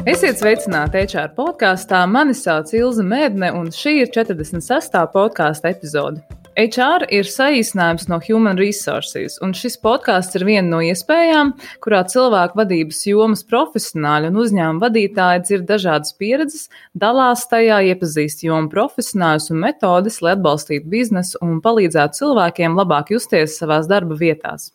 Esiet sveicināti HR podkāstā. Mani sauc Ilze Mēdne, un šī ir 46. podkāsta epizode. HR ir saīsinājums no Human Resources, un šis podkāsts ir viena no iespējām, kurā cilvēku vadības jomas profesionāļi un uzņēmuma vadītāji dzird dažādas pieredzes, dalās tajā, iepazīst jomu profesionāļus un metodes, lai atbalstītu biznesu un palīdzētu cilvēkiem labāk justies savās darba vietās.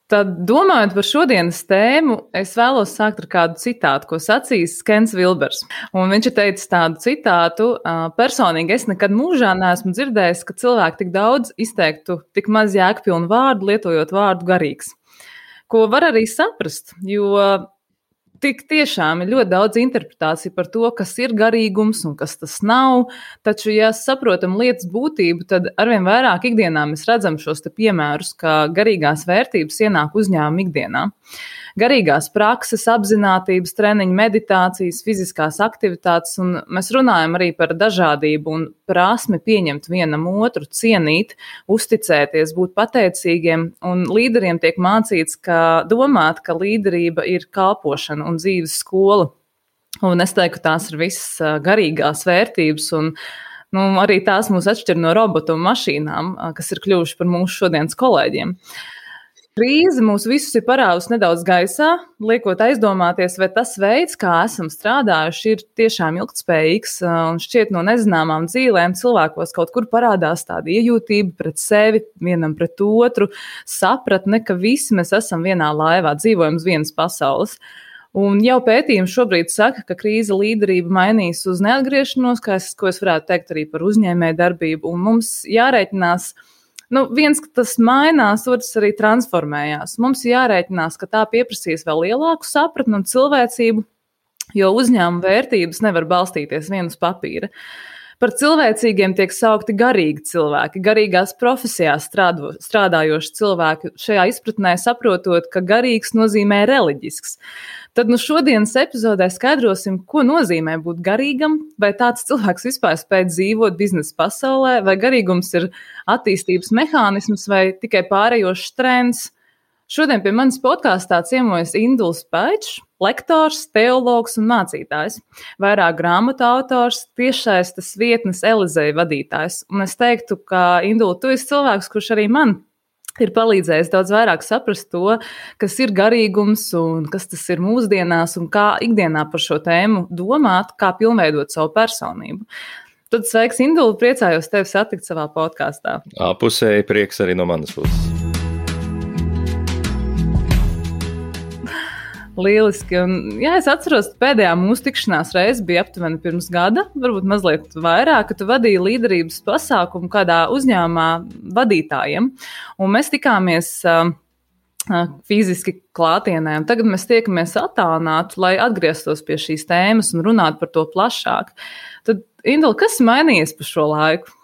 Tad, domājot par šodienas tēmu, es vēlos sākt ar kādu citātu, ko sacījis Kens Vilbers. Un viņš ir teicis tādu citātu: personīgi es nekad mūžā neesmu dzirdējis, ka cilvēki tik daudz izteiktu tik maz jēgpilnu vārdu, lietojot vārdu garīgs. Ko var arī saprast, jo tik tiešām ir ļoti daudz interpretāciju par to, kas ir garīgums un kas tas nav, taču, ja saprotam lietas būtību, tad arvien vairāk ikdienā mēs redzam šos te piemērus, ka garīgās vērtības ienāk uzņēmuma ikdienā. Garīgās prakses, apzinātības treniņi, meditācijas, fiziskās aktivitātes, un mēs runājam arī par dažādību un prasmi pieņemt vienam otru, cienīt, uzticēties, būt pateicīgiem, un līderiem tiek mācīts, domāt, ka līderība ir kalpošana un dzīves skola. Un es teiktu, ka tās ir visas garīgās vērtības, un arī tās mūs atšķir no robotu un mašīnām, kas ir kļuvuši par mūsu šodienas kolēģiem. Krīze mūs visus ir parāvusi nedaudz gaisā, liekot aizdomāties, vai tas veids, kā esam strādājuši, ir tiešām ilgtspējīgs, un šķiet no nezināmām dzīvēm cilvēkos kaut kur parādās tāda iejūtība pret sevi, vienam pret otru, sapratne, ka visi mēs esam vienā laivā, dzīvojam uz vienas pasaules. Un jau pētījumi šobrīd saka, ka krīze līderība mainīs uz neatgriešanos, ko es varētu teikt arī par uzņēmēju darbību, un mums jārēķinās. Viens, ka tas mainās, otrs arī transformējās. Mums jārēķinās, ka tā pieprasīs vēl lielāku sapratni un cilvēcību, jo uzņēmuma vērtības nevar balstīties vien uz papīra. Par cilvēcīgiem tiek saukti garīgi cilvēki, garīgās profesijās strādājoši cilvēki, šajā izpratnē saprotot, ka garīgs nozīmē reliģisks. Tad šodienas epizodē skaidrosim, ko nozīmē būt garīgam, vai tāds cilvēks vispār spēj dzīvot biznesa pasaulē, vai garīgums ir attīstības mehānisms vai tikai pārējošs trends. Šodien pie manis podkāstā ciemojas Induls Paičs, lektors, teologs un mācītājs, vairāk grāmatu autors, tiešsaistes vietnes Elizei vadītājs. Un es teiktu, ka Indul, tu esi cilvēks, kurš arī man ir palīdzējis daudz vairāk saprast to, kas ir garīgums un kas tas ir mūsdienās un kā ikdienā par šo tēmu domāt, kā pilnveidot savu personību. Tad sveiks, Indul, priecājos tevi satikt savā podkāstā. Pusēji prieks arī no manas puses. Lieliski. Un, es atceros, pēdējā mūsu tikšanās reize bija aptuveni pirms gada, varbūt mazliet vairāk, ka tu vadīji līderības pasākumu kādā uzņēmumā vadītājiem. Un mēs tikāmies fiziski klātienē, un tagad mēs tiekamies attālināti, lai atgrieztos pie šīs tēmas un runātu par to plašāk. Tad, Indul, kas mainījies pa šo laiku?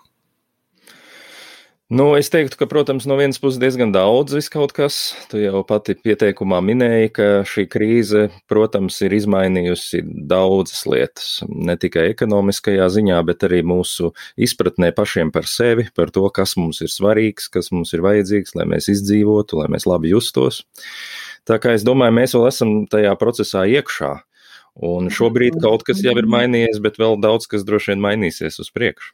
Es teiktu, ka, protams, no vienas puses diezgan daudz viskaut kas. Tu jau pati pieteikumā minēji, ka šī krīze, protams, ir izmainījusi daudzas lietas. Ne tikai ekonomiskajā ziņā, bet arī mūsu izpratnē pašiem par sevi, par to, kas mums ir svarīgs, kas mums ir vajadzīgs, lai mēs izdzīvotu, lai mēs labi justos. Tā kā es domāju, mēs vēl esam tajā procesā iekšā. Un šobrīd kaut kas jau ir mainījies, bet vēl daudz kas droši vien mainīsies uz priekšu.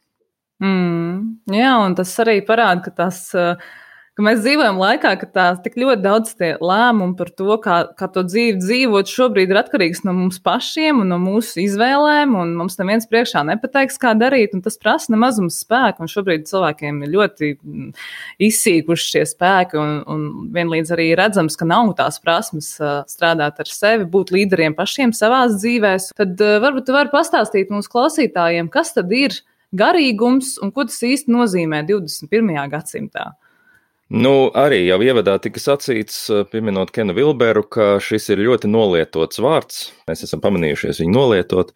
Jā, un tas arī parāda, ka mēs dzīvojam laikā, ka tās tik ļoti daudz tie lēmumi par to, kā to dzīvi dzīvot, šobrīd ir atkarīgs no mums pašiem un no mūsu izvēlēm, un mums neviens priekšā nepateiks, kā darīt, un tas prasa nemazums spēku, un šobrīd cilvēkiem ir ļoti izsīkuši šie spēki, un vienlīdz arī redzams, ka nav tās prasmes strādāt ar sevi, būt līderiem pašiem savās dzīvēs. Tad varbūt tu vari pastāstīt mūsu klausītājiem, kas tad ir garīgums un ko tas īsti nozīmē 21. gadsimtā? Arī jau ievadā tika sacīts, pieminot Kenu Vilberu, ka šis ir ļoti nolietots vārds. Mēs esam pamanījušies viņu nolietot.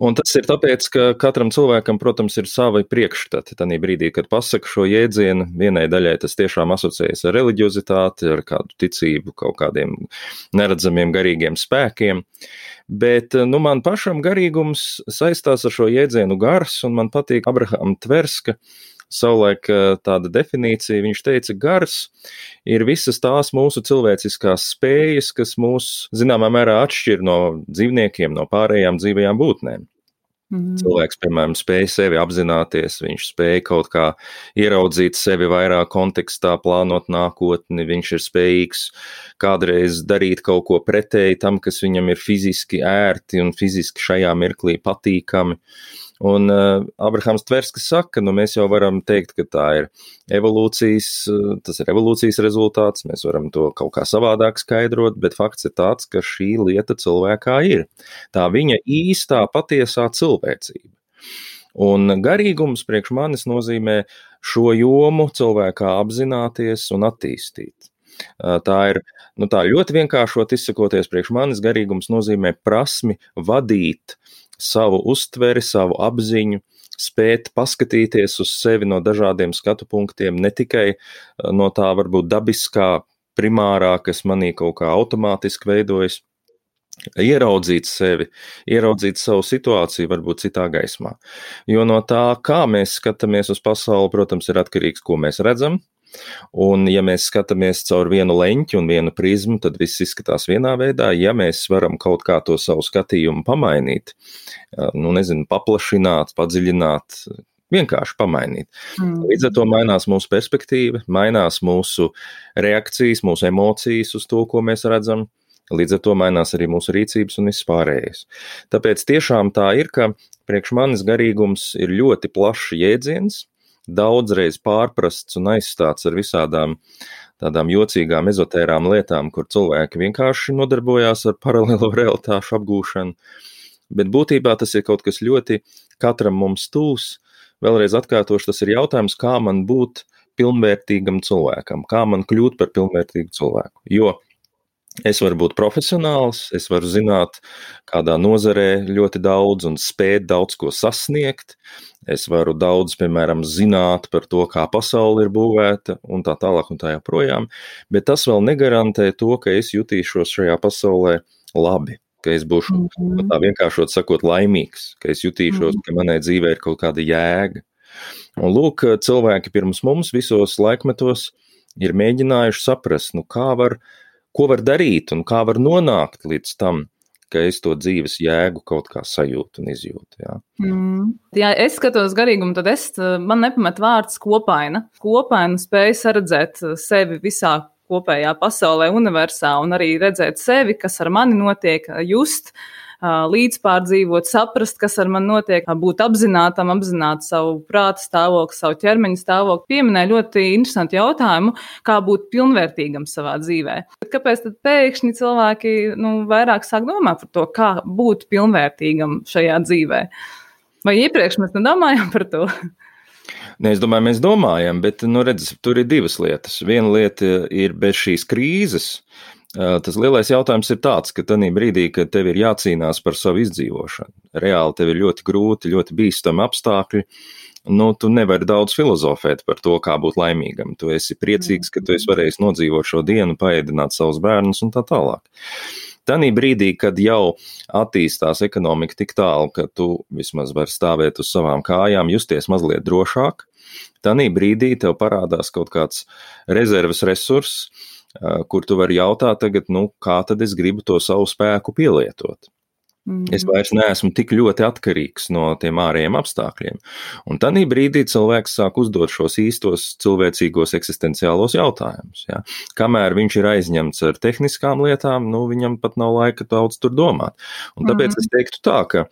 Un tas ir tāpēc, ka katram cilvēkam, protams, ir savi priekšstati. Tanī brīdī, kad pasaka šo jēdzienu, vienai daļai tas tiešām asociējas ar reliģiozitāti, ar kādu ticību, kaut kādiem neredzamiem garīgiem spēkiem. Bet man pašam garīgums saistās ar šo jēdzienu gars, un man patīk Abrahama Tverska savulaik tāda definīcija, viņš teica, gars ir visas tās mūsu cilvēciskās spējas, kas mūs zināmā mērā atšķir no dzīvniekiem, no pārējām dzīvajām būtnēm. Cilvēks, piemēram, spēja sevi apzināties, viņš spēja kaut kā ieraudzīt sevi vairāk kontekstā, plānot nākotni, viņš ir spējīgs kādreiz darīt kaut ko pretēji tam, kas viņam ir fiziski ērti un fiziski šajā mirklī patīkami. Un Abrahams Tverskis saka, mēs jau varam teikt, ka tā ir tas ir evolūcijas rezultāts, mēs varam to kaut kā savādāk skaidrot, bet fakts ir tāds, ka šī lieta cilvēkā ir. Tā viņa īstā, patiesā cilvēcība. Un garīgums priekš manis nozīmē šo jomu cilvēkā apzināties un attīstīt. Tā ir, tā ļoti vienkāršot izsakoties priekš manis, garīgums nozīmē prasmi vadīt savu uztveri, savu apziņu, spēt paskatīties uz sevi no dažādiem skatu punktiem, ne tikai no tā varbūt dabiskā, primārā, kas manī kaut kā automātiski veidojas, ieraudzīt sevi, ieraudzīt savu situāciju varbūt citā gaismā. Jo no tā, kā mēs skatāmies uz pasauli, protams, ir atkarīgs, ko mēs redzam. Un ja mēs skatāmies caur vienu leņķi un vienu prizmu, tad viss izskatās vienā veidā. Ja mēs varam kaut kā to savu skatījumu pamainīt, paplašināt, padziļināt, vienkārši pamainīt. Līdz ar to mainās mūsu perspektīva, mainās mūsu reakcijas, mūsu emocijas uz to, ko mēs redzam. Līdz ar to mainās arī mūsu rīcības un viss pārējais. Tāpēc tiešām tā ir, ka priekš manis garīgums ir ļoti plašs jēdziens, daudzreiz pārprasts un aizstāts ar visādām tādām jocīgām ezotērām lietām, kur cilvēki vienkārši nodarbojās ar paralēlo realitāšu apgūšanu, bet būtībā tas ir kaut kas ļoti katram mums tūs. Vēlreiz atkārtošu, tas ir jautājums, kā man būt pilnvērtīgam cilvēkam, kā man kļūt par pilnvērtīgu cilvēku, jo es varu būt profesionāls, es varu zināt kādā nozarē ļoti daudz un spēt daudz ko sasniegt, es varu daudz, piemēram, zināt par to, kā pasaule ir būvēta un tā tālāk un tā joprojām, bet tas vēl negarantē to, ka es jutīšos šajā pasaulē labi, ka es būšu tā vienkāršot sakot laimīgs, ka es jutīšos, ka manai dzīvē ir kaut kāda jēga. Un lūk, cilvēki pirms mums visos laikmetos ir mēģinājuši saprast, ko var darīt un kā var nonākt līdz tam, ka es to dzīves jēgu kaut kā sajūtu un izjūtu. Jā. Ja es skatos garīgumu, tad man nepamet vārds kopaina. Kopaina spēja saredzēt sevi visā kopējā pasaulē, universā un arī redzēt sevi, kas ar mani notiek, just, līdzpārdzīvot, saprast, kas ar mani notiek, būt apzinātam, apzināt savu prāta stāvokli, savu ķermeņa stāvokli. Pieminēja ļoti interesantu jautājumu, kā būt pilnvērtīgam savā dzīvē. Kāpēc tad pēkšņi cilvēki vairāk sāk domāt par to, kā būt pilnvērtīgam šajā dzīvē? Vai iepriekš mēs nedomājam par to? Es domāju, mēs domājam, bet, tur ir divas lietas. Viena lieta ir bez šīs krīzes. Tas lielais jautājums ir tāds, ka tajā brīdī, kad tev ir jācīnās par savu izdzīvošanu, reāli tev ir ļoti grūti, ļoti bīstami apstākļi, tu nevari daudz filozofēt par to, kā būt laimīgam. Tu esi priecīgs, ka tu esi varējis nodzīvot šo dienu, paēdināt savus bērnus un tā tālāk. Tanī brīdī, kad jau attīstās ekonomika tik tālu, ka tu vismaz vari stāvēt uz savām kājām, justies mazliet drošāk, tanī brīdī tev parādās kaut kāds rezerves resurss, kur tu vari jautāt tagad, kā tad es gribu to savu spēku pielietot. Es vairs neesmu tik ļoti atkarīgs no tiem ārējiem apstākļiem. Un tanī brīdī cilvēks sāk uzdot šos īstos cilvēcīgos eksistenciālos jautājumus. Ja? Kamēr viņš ir aizņemts ar tehniskām lietām, viņam pat nav laika daudz tur domāt. Un tāpēc es teiktu tā, ka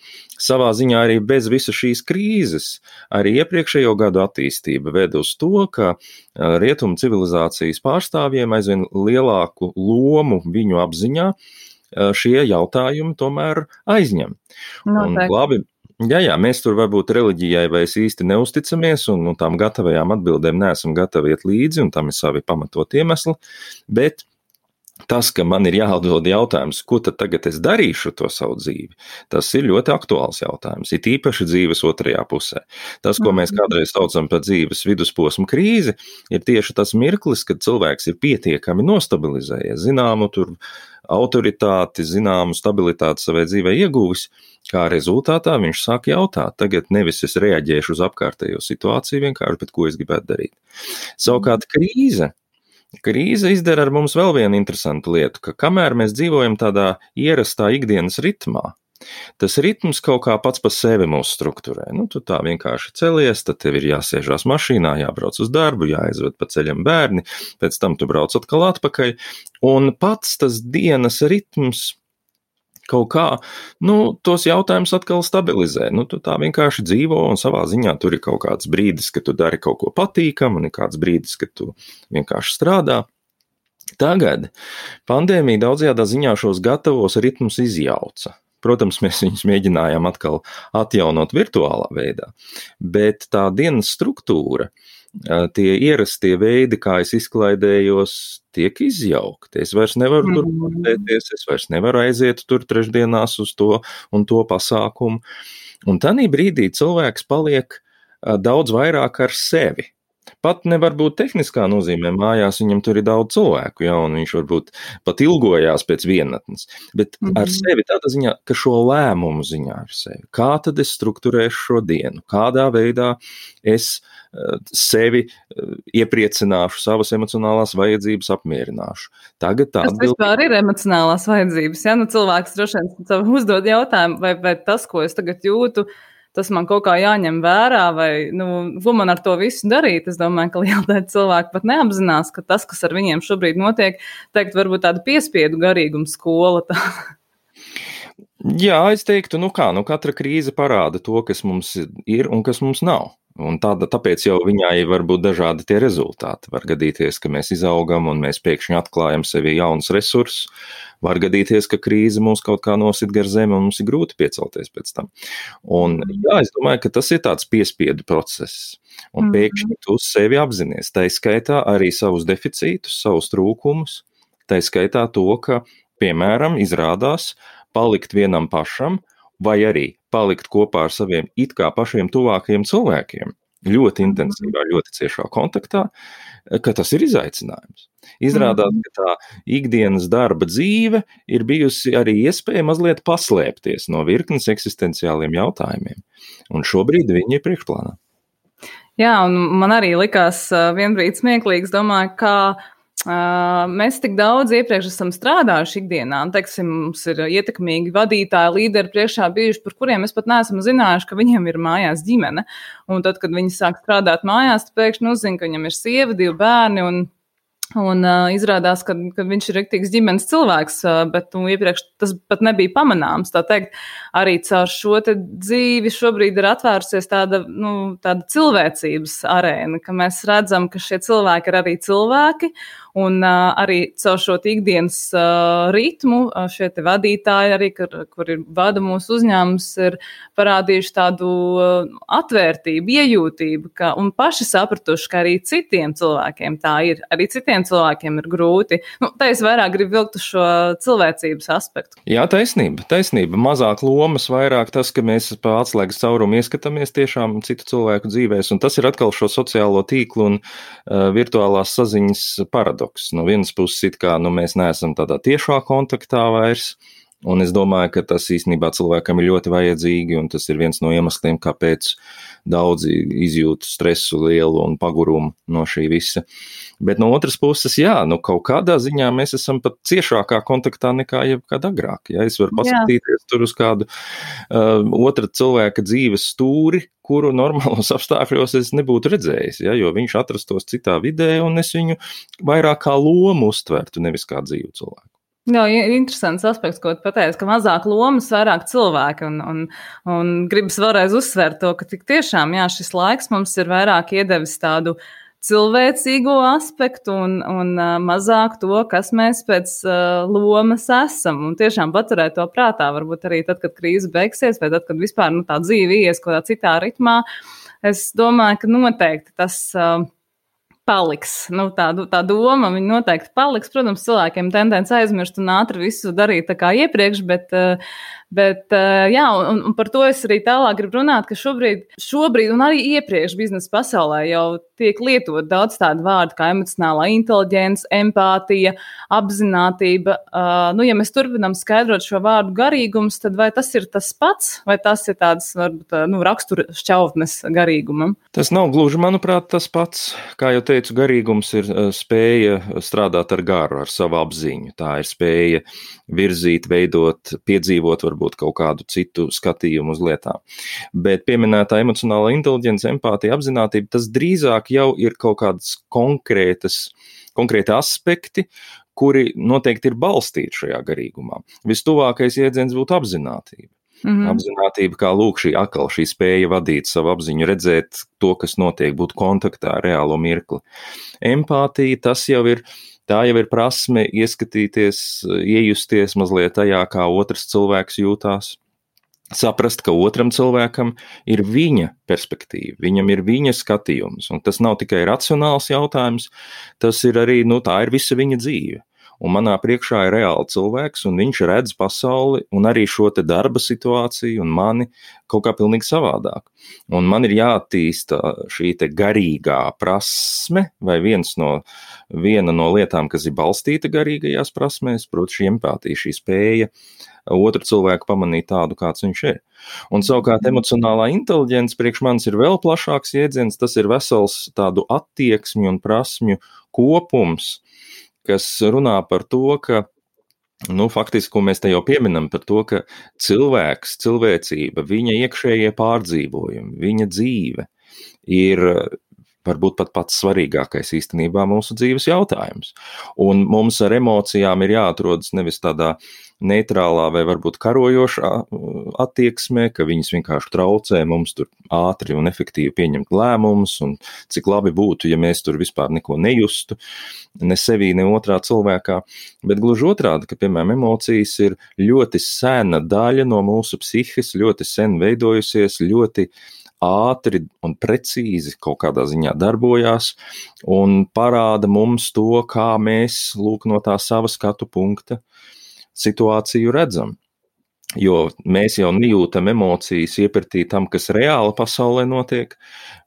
savā ziņā arī bez visa šīs krīzes, arī iepriekšējo gadu attīstība ved uz to, ka rietumu civilizācijas pārstāvjiem aizvien lielāku lomu viņu apziņā šie jautājumi tomēr aizņem. Un labi, mēs tur varbūt reliģijai vairs īsti neusticamies un tām gatavajām atbildēm neesam gatavi iet līdzi, un tam ir savi pamatot iemesli, bet tas, ka man ir jāatdod jautājums, ko tad tagad es darīšu to savu dzīvi, tas ir ļoti aktuāls jautājums, it īpaši dzīves otrajā pusē. Tas, ko mēs kādreiz saucam par dzīves vidusposmu krīzi, ir tieši tas mirklis, kad cilvēks ir pietiekami nostabilizējies, zināmu tur autoritāti, zināmu stabilitāti savai dzīvē ieguvis, kā rezultātā viņš sāk jautāt, tagad nevis es reaģēšu uz apkārtējo situāciju vienkārši, bet ko es gribētu darīt. Savukārt krīze izdara ar mums vēl vienu interesantu lietu, ka kamēr mēs dzīvojam tādā ierastā ikdienas ritmā, tas ritms kaut kā pats pa sevi mūs strukturē. Tu tā vienkārši celies, tad tev ir jāsēžās mašīnā, jābrauc uz darbu, jāaizved pa ceļam bērni, pēc tam tu brauc atkal atpakaļ, un pats tas dienas ritms kaut kā, tos jautājumus atkal stabilizē. Tu tā vienkārši dzīvo un savā ziņā tur ir kaut kāds brīdis, kad tu dari kaut ko patīkamu, un ir kāds brīdis, kad tu vienkārši strādā. Tagad pandēmija daudzajādā ziņā šos gatavos ritmus izjauca. Protams, mēs viņus mēģinājām atkal atjaunot virtuālā veidā, bet tā dienas struktūra, tie ierastie veidi, kā es izklaidējos, tiek izjaukti. Es vairs nevaru tur pastēties, es vairs nevaru aiziet tur trešdienās uz to un to pasākumu. Un tādā brīdī cilvēks paliek daudz vairāk ar sevi. Pat nevar būt tehniskā nozīmē, mājās viņam tur ir daudz cilvēku, un viņš varbūt pat ilgojās pēc vienatnes, bet ar sevi tādā ziņā, ka šo lēmumu ziņā ar sevi. Kā tad es strukturēšu šo dienu? Kādā veidā es sevi iepriecināšu, savas emocionālās vajadzības apmierināšu? Tagad tā atbildi. Tas vispār ir emocionālās vajadzības, cilvēks droši vien uzdod jautājumu, vai tas, ko es tagad jūtu, tas man kaut kā jāņem vērā, vai, ko man ar to visu darīt. Es domāju, ka liela daļa cilvēku pat neapzinās, ka tas, kas ar viņiem šobrīd notiek, varbūt tāda piespiedu garīguma skola. Jā, es teiktu, katra krīze parāda to, kas mums ir un kas mums nav. Un tāpēc jau viņai var būt dažādi tie rezultāti. Var gadīties, ka mēs izaugam un mēs pēkšņi atklājam sevi jaunus resursus. Var gadīties, ka krīze mūs kaut kā nosit gar zemi un mums ir grūti piecelties pēc tam. Un jā, es domāju, ka tas ir tāds piespiedu process. Un pēkšņi tu sevi apzinies. Tā skaitā arī savus deficītus, savus trūkumus. Tā skaitā to, ka, piemēram, izrādās palikt vienam pašam vai arī palikt kopā ar saviem it kā pašiem tuvākajiem cilvēkiem ļoti intensīvā, ļoti ciešā kontaktā, ka tas ir izaicinājums. Izrādās, ka tā ikdienas darba dzīve ir bijusi arī iespēja mazliet paslēpties no virknes eksistenciāliem jautājumiem. Un šobrīd viņi ir priekšplānā. Jā, un man arī likās vienbrīd smieklīgs, domāju, kā mēs tik daudz iepriekš esam strādājuši ikdienā, un, mums ir ietekmīgi vadītāji, līderi priekšā bijuši, par kuriem mēs pat neesam zinājuši, ka viņiem ir mājās ģimene. Un tad, kad viņi sāk strādāt mājās, tad pēkšņi uzzina, ka viņam ir sieva, 2 bērni, un izrādās, ka viņš ir riktīgs ģimenes cilvēks, bet iepriekš tas pat nebija pamanāms. Tā teikt, arī caur šo te dzīvi šobrīd ir atvērusies tāda cilvēcības arēna, ka mēs redzam, ka šie cilvēki ir arī cilvēki, un arī caur šo ikdienas ritmu šie te vadītāji, arī, kuri vada mūsu uzņēmums, ir parādījuši tādu atvērtību, iejūtību, un paši sapratuši, ka arī citiem cilvēkiem tā ir. Arī citiem cilvēkiem ir grūti. Tā es vairāk gribu vilkt uz šo cilvēcības aspektu. Jā, taisnība. Mazāk lomas, vairāk tas, ka mēs pa atslēgas caurumu ieskatāmies tiešām citu cilvēku dzīvēs, un tas ir atkal šo sociālo tīklu un virtuālās saziņas paradoks. No vienas puses it kā mēs neesam tādā tiešā kontaktā vairs, un es domāju, ka tas īstenībā cilvēkam ir ļoti vajadzīgi, un tas ir viens no iemesliem, kāpēc daudzi izjūt stresu lielu un pagurumu no šī visa. Bet no otras puses, jā, kaut kādā ziņā mēs esam pat ciešākā kontaktā nekā jebkad agrāk. Ja? Es varu paskatīties tur uz kādu otra cilvēka dzīves stūri, kuru normālos apstākļos es nebūtu redzējis, ja? Jo viņš atrastos citā vidē, un es viņu vairāk kā lomu uztvertu, nevis kā dzīvu cilvēku. Jā, interesants aspekts, ko tu pateici, ka mazāk lomas, vairāk cilvēki, un gribas vēlreiz uzsvērt to, ka tik tiešām, jā, šis laiks mums ir vairāk iedevis tādu cilvēcīgo aspektu un mazāk to, kas mēs pēc lomas esam, un tiešām paturēt to prātā, varbūt arī tad, kad krīze beigsies, vai tad, kad vispār tā dzīve ies kaut kādā citā ritmā, es domāju, ka noteikti tas paliks. Tā doma, viņa noteikti paliks. Protams, cilvēkiem tendence aizmirst un ātri visu darīt tā kā iepriekš, bet Bet, jā, un par to es arī tālāk gribu runāt, ka šobrīd un arī iepriekš biznesa pasaulē jau tiek lietot daudz tādu vārdu kā emocionālā inteliģence, empātija, apzinātība. Ja mēs turpinām skaidrot šo vārdu garīgums, tad vai tas ir tas pats, vai tas ir tāds, varbūt, rakstura šķautnes garīgumam? Tas nav gluži, manuprāt, tas pats. Kā jau teicu, garīgums ir spēja strādāt ar garu, ar savu apziņu. Tā ir spēja virzīt, veidot, piedzīvot varbūt kaut kādu citu skatījumu uz lietām. Bet pieminētā emocionālā inteliģence, empātija, apzinātība, tas drīzāk jau ir kaut kādas konkrēti aspekti, kuri noteikti ir balstīti šajā garīgumā. Vistuvākais jēdziens būtu apzinātība. Apzinātība, kā lūk, šī spēja vadīt savu apziņu, redzēt to, kas notiek, būt kontaktā ar reālo mirkli. Empātija, tā jau ir prasme ieskatīties, iejusties mazliet tajā, kā otrs cilvēks jūtās, saprast, ka otram cilvēkam ir viņa perspektīva, viņam ir viņa skatījums, un tas nav tikai racionāls jautājums, tas ir arī, tā ir visa viņa dzīve. Un manā priekšā ir reāli cilvēks, un viņš redz pasauli un arī šo te darba situāciju un mani kaut kā pilnīgi savādāk. Un man ir jāattīsta šī te garīgā prasme, vai viena no lietām, kas ir balstīta garīgajās prasmēs, proti šī empātija, šī spēja otru cilvēku pamanīt tādu, kāds viņš ir. Un savukārt emocionālā inteliģence priekš manis ir vēl plašāks jēdziens, tas ir vesels tādu attieksmju un prasmju kopums, kas runā par to, ka, faktiski, ko mēs te jau pieminam, par to, ka cilvēks, cilvēcība, viņa iekšējie pārdzīvojumi, viņa dzīve ir varbūt pat pats svarīgākais īstenībā mūsu dzīves jautājums. Un mums ar emocijām ir jāatrodas nevis tādā neitrālā vai varbūt karojošā attieksmē, ka viņas vienkārši traucē mums tur ātri un efektīvi pieņemt lēmumus, un cik labi būtu, ja mēs tur vispār neko nejustu, ne sevī, ne otrā cilvēkā, bet gluži otrādi, ka, piemēram, emocijas ir ļoti sena daļa no mūsu psihes, ļoti sen veidojusies, ļoti ātri un precīzi kaut kādā ziņā darbojās un parāda mums to, kā mēs, no tā sava skatu punkta situāciju redzam. Jo mēs jau nejūtam emocijas iepratī tam, kas reāli pasaulē notiek,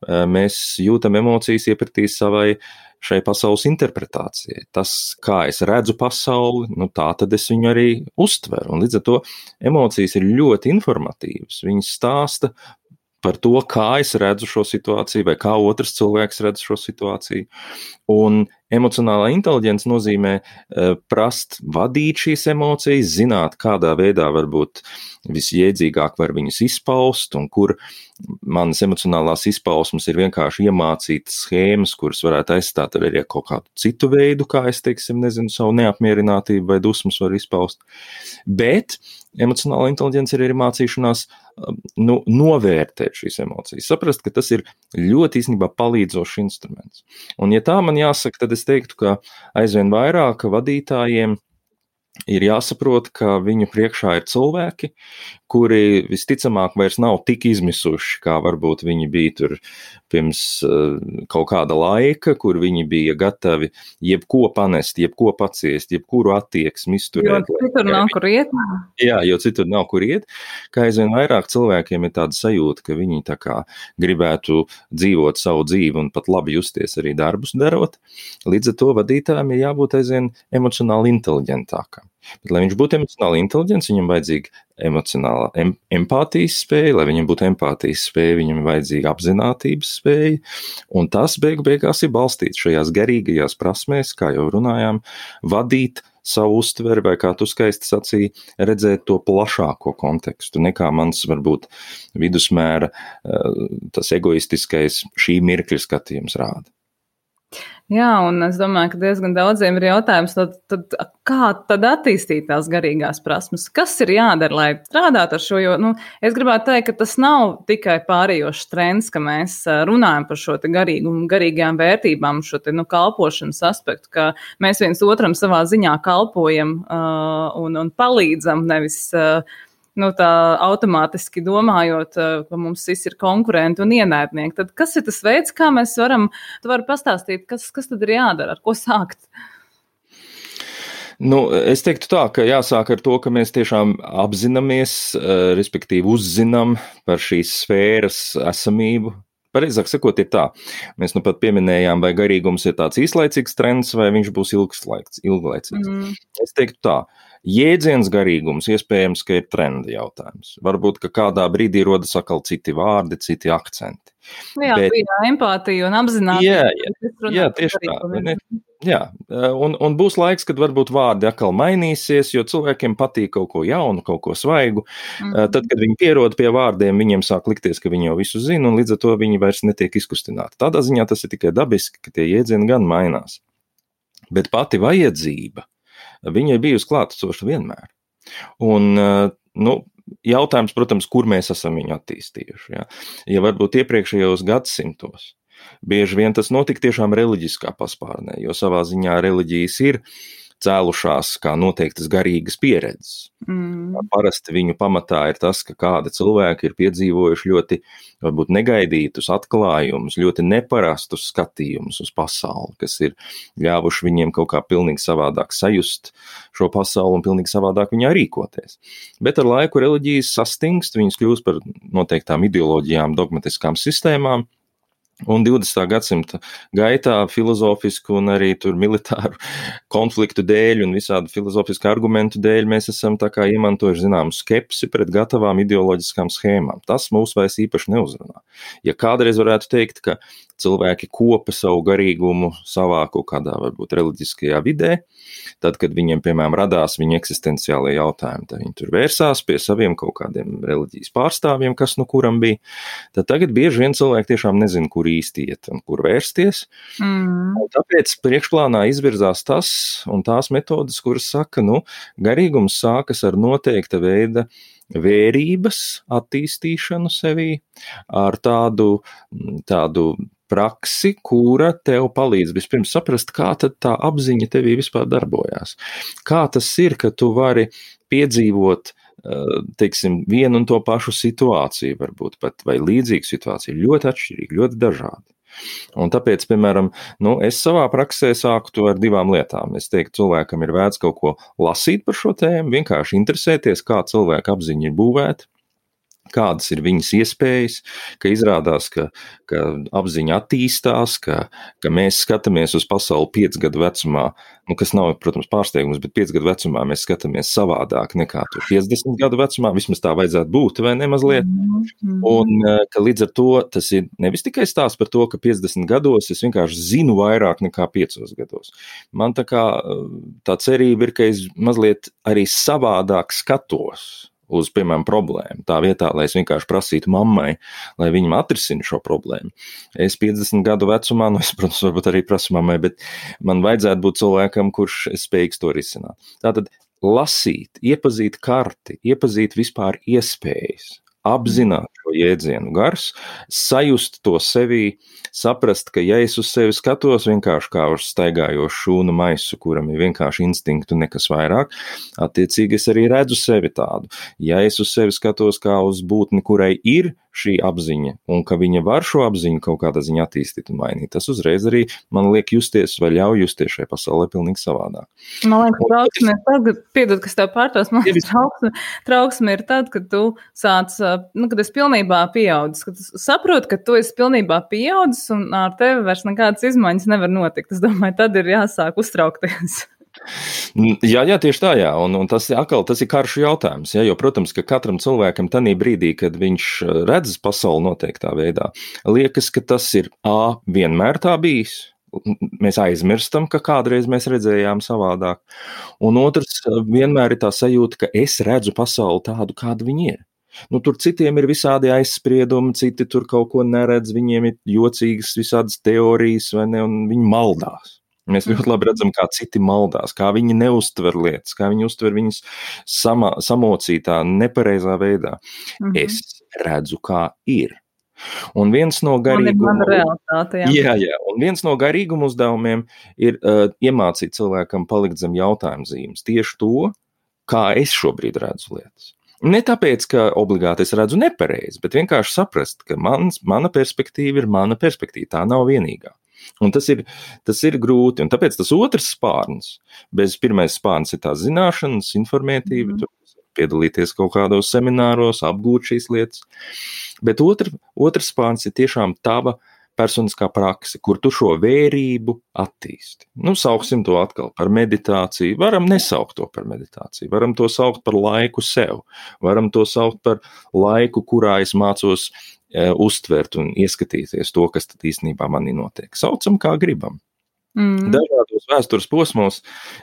mēs jūtam emocijas iepratī šai pasaules interpretācijai. Tas, kā es redzu pasauli, tā tad es viņu arī uztveru. Un līdz ar to emocijas ir ļoti informatīvas. Viņas stāsta par to, kā es redzu šo situāciju, vai kā otrs cilvēks redz šo situāciju. Un emocionālā inteliģence nozīmē prast vadīt šīs emocijas, zināt, kādā veidā varbūt visjēdzīgāk var viņas izpaust, un kur manas emocionālās izpausmes ir vienkārši iemācītas schēmas, kuras varētu aizstāt arī kaut kādu citu veidu, kā es, savu neapmierinātību vai dusmas var izpaust. Bet emocionāla inteliģence ir arī mācīšanās novērtēt šīs emocijas, saprast, ka tas ir ļoti īstenībā palīdzošs instruments. Un ja tā man jāsaka, tad es teiktu, ka aizvien vairāk vadītājiem ir jāsaprot, ka viņu priekšā ir cilvēki, kuri visticamāk vairs nav tik izmisuši, kā varbūt viņi bija tur pirms kaut kāda laika, kur viņi bija gatavi jebko panest, jebko paciest, jebkuru attieksmi izturēt. Jo citur nav kur iet. Jā, jo citur nav kur iet, kā aizvien vairāk cilvēkiem ir tāda sajūta, ka viņi tā kā gribētu dzīvot savu dzīvi un pat labi justies arī darbus darot. Līdz ar to vadītājiem ir jābūt aizvien emocionāli inteliģentākam. Bet, lai viņš būtu emocionāli inteliģents, viņam vajadzīga emocionāla empātijas spēja, lai viņam būtu empātijas spēja, viņam vajadzīga apzinātības spēja, un tas beigās ir balstīts šajās garīgajās prasmēs, kā jau runājām, vadīt savu uztveri, vai kā tu skaisti sacīji, redzēt to plašāko kontekstu, nekā mans varbūt vidusmēra tas egoistiskais šī mirkļa skatījums rāda. Jā, un es domāju, ka diezgan daudziem ir jautājums, kā tad attīstīt tās garīgās prasmes? Kas ir jādara, lai strādātu ar šo? Jo, es gribētu teikt, ka tas nav tikai pārējošs trends, ka mēs runājam par šo te garīgumu, garīgajām vērtībām, šo te kalpošanas aspektu, ka mēs viens otram savā ziņā kalpojam un palīdzam, nevis tā automātiski domājot, ka mums visi ir konkurenti un ienaidnieki. Tad kas ir tas veids, kā mēs varam, tu vari pastāstīt, kas tad ir jādara, ar ko sākt? Es teiktu tā, ka jāsāk ar to, ka mēs tiešām apzināmies, respektīvi uzzinām par šīs sfēras esamību. Pareizāk sakot, ir tā. Mēs nu pat pieminējām, vai garīgums ir tāds īslaicīgs trends, vai viņš būs ilglaicīgs. Es teiktu tā. Jēdziens garīgums iespējams, ka ir trenda jautājums. Varbūt, ka kādā brīdī rodas atkal citi vārdi, citi akcenti. Jā, bija empātija un apzinātība. Jā, tieši tā. Jā, un būs laiks, kad varbūt vārdi atkal mainīsies, jo cilvēkiem patīk kaut ko jaunu, kaut ko svaigu. Tad, kad viņi pierod pie vārdiem, viņiem sāk likties, ka viņi jau visu zina, un līdz ar to viņi vairs netiek izkustināti. Tādā ziņā tas ir tikai dabiski, ka tie jēdzieni gan mainās. Bet pati vajadzība, viņa ir bijusi klātesoša vienmēr. Un, jautājums, protams, kur mēs esam viņu attīstījuši. Ja varbūt iepriekšējos gadsimtos bieži vien tas notika tiešām reliģiskā paspārnē, jo savā ziņā reliģijas ir cēlušās kā noteiktas garīgas pieredzes. Parasti viņu pamatā ir tas, ka kādi cilvēki ir piedzīvojuši ļoti varbūt negaidītus atklājumus, ļoti neparastus skatījumus uz pasauli, kas ir ļāvuši viņiem kaut kā pilnīgi savādāk sajust šo pasauli un pilnīgi savādāk viņā rīkoties. Bet ar laiku reliģijas sastingst, viņas kļūst par noteiktām ideoloģijām, dogmatiskām sistēmām. Un 20. gadsimta gaitā filozofisku un arī tur militāru konfliktu dēļ un visādu filozofisku argumentu dēļ mēs esam tā kā iemantojuši zināmu skepsi pret gatavām ideoloģiskām schēmām. Tas mūs vairs īpaši neuzrunā. Ja kādreiz varētu teikt, ka cilvēki kopa savu garīgumu savā kaut kādā varbūt reliģiskajā vidē, tad, kad viņiem, piemēram, radās viņa eksistenciālie jautājumi, tad viņi tur vērsās pie saviem kaut kādiem reliģijas pārstāvjiem, kas nu kuram bija, tad tagad bieži vien cilvēki tiešām nezina, kur īsti iet un kur vērsties. Un tāpēc priekšplānā izvirzās tas un tās metodas, kuras saka, garīgums sākas ar noteikta veida vērības attīstīšanu sevī, ar tādu praksi, kura tev palīdz vispirms saprast, kā tad tā apziņa tevī vispār darbojās. Kā tas ir, ka tu vari piedzīvot, teiksim, vienu un to pašu situāciju, varbūt pat vai līdzīgu situāciju, ļoti atšķirīgi, ļoti dažādi. Un tāpēc, piemēram, es savā praksē sāku to ar 2 lietām. Es teiktu, cilvēkam ir vērts kaut ko lasīt par šo tēmu, vienkārši interesēties, kā cilvēka apziņa ir būvēta, kādas ir viņas iespējas, ka izrādās, ka apziņa attīstās, ka mēs skatāmies uz pasauli 5 gadu vecumā, kas nav, protams, pārsteigums, bet 5 gadu vecumā mēs skatāmies savādāk nekā 50 gadu vecumā, vismaz tā vajadzētu būt, vai ne mazliet? Un ka līdz ar to tas ir nevis tikai stāsts par to, ka 50 gados es vienkārši zinu vairāk nekā 5 gados. Man tā cerība ir, ka es mazliet arī savādāk skatos uz, piemēram, problēmu. Tā vietā, lai es vienkārši prasītu mammai, lai viņa atrisina šo problēmu. Es 50 gadu vecumā, es, protams, varbūt arī prasu mammai, bet man vajadzētu būt cilvēkam, kurš spējīgs to risināt. Tātad lasīt, iepazīt karti, iepazīt vispār iespējas, apzināt šo jēdzienu gars, sajust to sevī, saprast, ka ja es uz sevi skatos vienkārši kā uz staigājošu šūnu maisu, kuram ir vienkārši instinktu nekas vairāk, attiecīgi es arī redzu sevi tādu. Ja es uz sevi skatos kā uz būtni, kurai ir šī apziņa, un ka viņa var šo apziņu kaut kādā ziņā attīstīt un mainīt, tas uzreiz arī man liek justies vai ļauj justies šajā pasaulē pilnīgi savādāk. Man liekas, trauksme ir tad, piedod, kas tev pārtos, man liekas, trauksme ir tad, kad tu sāc, kad esi pilnībā pieaudzis, kad tu saproti, ka tu esi pilnībā pieaudzis un ar tevi vairs nekādas izmaiņas nevar notikt. Es domāju, tad ir jāsāk uztraukties. Jā, tieši tā, jā. Un tas ir karšu jautājums, jo, protams, ka katram cilvēkam tanī brīdī, kad viņš redz pasauli noteiktā veidā, liekas, ka tas ir vienmēr tā bijis. Mēs aizmirstam, ka kādreiz mēs redzējām savādāk. Un otrs, vienmēr ir tā sajūta, ka es redzu pasauli tādu, kāda viņa ir. Tur citiem ir visādi aizspriedumi, citi tur kaut ko neredz, viņiem ir jocīgas visādas teorijas, vai ne, un viņi maldās. Mēs ļoti labi redzam, kā citi maldās, kā viņi neuztver lietas, kā viņi uztver viņas samocītā, nepareizā veidā. Es redzu, kā ir. Un viens no garīguma un viens no garīguma uzdevumiem ir iemācīt cilvēkam palikt zem jautājuma zīmes. Tieši to, kā es šobrīd redzu lietas. Ne tāpēc, ka obligāti es redzu nepareizi, bet vienkārši saprast, ka mana perspektīva ir mana perspektīva, tā nav vienīgā. Un tas ir grūti, un tāpēc tas otrs spārns, pirmais spārns ir tās zināšanas, informētība, piedalīties kaut kādos semināros, apgūt šīs lietas, bet otrs spārns ir tiešām tava personiskā prakse, kur tu šo vērību attīsti. Sauksim to atkal par meditāciju, varam nesaukt to par meditāciju, varam to saukt par laiku sev, varam to saukt par laiku, kurā es mācos uztvert un ieskatīties to, kas tad īstenībā manī notiek. Saucam, kā gribam. Dažādos vēstures posmos,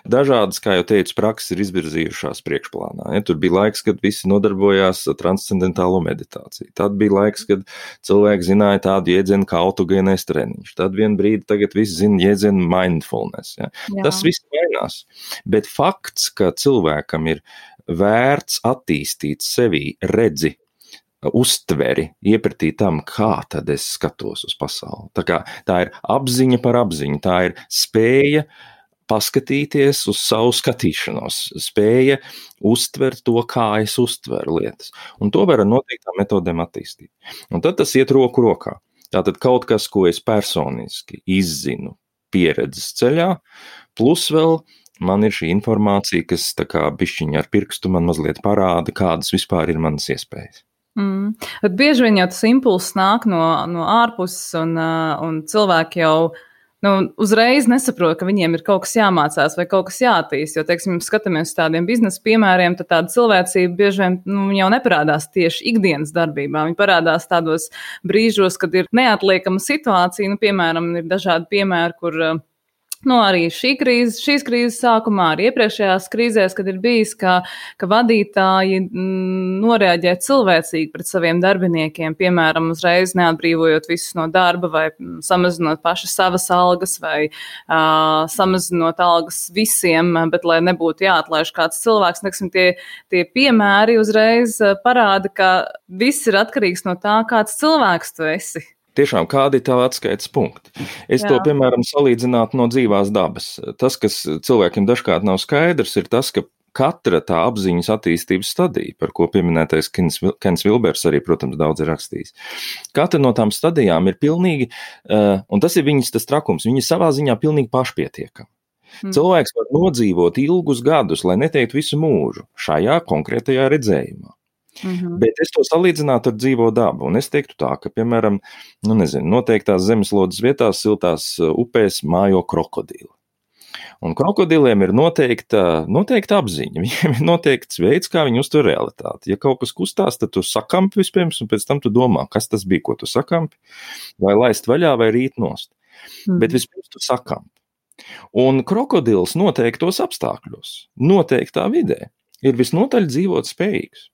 dažādas, kā jau teicu, prakses ir izvirzījušās priekšplānā. Ja, tur bija laiks, kad visi nodarbojās ar transcendentālo meditāciju. Tad bija laiks, kad cilvēki zināja tādu jēdzienu kā autogēnais treniņš. Tad vien brīdi tagad visi zina jēdzienu mindfulness. Ja. Tas viss mainās. Bet fakts, ka cilvēkam ir vērts attīstīt sevī redzi, uztveri, iepratīt tam, kā tad es skatos uz pasauli. Tā ir apziņa par apziņu, tā ir spēja paskatīties uz savu skatīšanos, spēja uztvert to, kā es uztveru lietas. Un to var ar noteiktām metodēm attīstīt. Un tad tas iet roku rokā. Tātad kaut kas, ko es personiski izzinu pieredzes ceļā, plus vēl man ir šī informācija, kas tā kā bišķiņa ar pirkstu man mazliet parāda, kādas vispār ir manas iespējas. Bet bieži vien jau tas impulss nāk no ārpuses, un cilvēki jau uzreiz nesaprot, ka viņiem ir kaut kas jāmācās vai kaut kas jāattīst. Jo, teiksim, skatāmies uz tādiem biznesa piemēriem, tad tāda cilvēcība bieži vien jau neparādās tieši ikdienas darbībā. Viņi parādās tādos brīžos, kad ir neatliekama situācija. Piemēram, ir dažādi piemēri, kur arī šīs krīzes sākumā, arī iepriekšējās krīzēs, kad ir bijis, ka vadītāji noreaģē cilvēcīgi pret saviem darbiniekiem, piemēram, uzreiz neatbrīvojot visus no darba vai samazinot paši savas algas vai samazinot algas visiem, bet lai nebūtu jāatlaiž kāds cilvēks. Neksim, tie piemēri uzreiz parāda, ka viss ir atkarīgs no tā, kāds cilvēks tu esi. Tiešām, kādi ir tavi atskaites punkti? Es to, piemēram, salīdzinātu no dzīvās dabas. Tas, kas cilvēkiem dažkārt nav skaidrs, ir tas, ka katra tā apziņas attīstības stadija, par ko pieminētais Kens Vilbers arī, protams, daudz ir rakstījis. Katra no tām stadijām ir pilnīgi, un tas ir viņas tas trakums, viņa savā ziņā pilnīgi pašpietiekama. Cilvēks var nodzīvot ilgus gadus, lai neteikt visu mūžu, šajā konkrētajā redzējumā. Bet es to salīdzinātu ar dzīvo dabu, un es teiktu tā, ka, piemēram, noteiktās zemeslodes vietās, siltās upēs mājo krokodili. Un krokodiliem ir noteikta apziņa, viņiem ir noteikts veids, kā viņi uztver realitāti. Ja kaut kas kustās, tad tu sakampi vispirms, un pēc tam tu domā, kas tas bija, ko tu sakampi, vai laist vaļā, vai rīt nost. Bet vispirms tu sakampi. Un krokodils noteiktos apstākļos, noteiktā vidē, ir visnotaļ dzīvot spējīgs.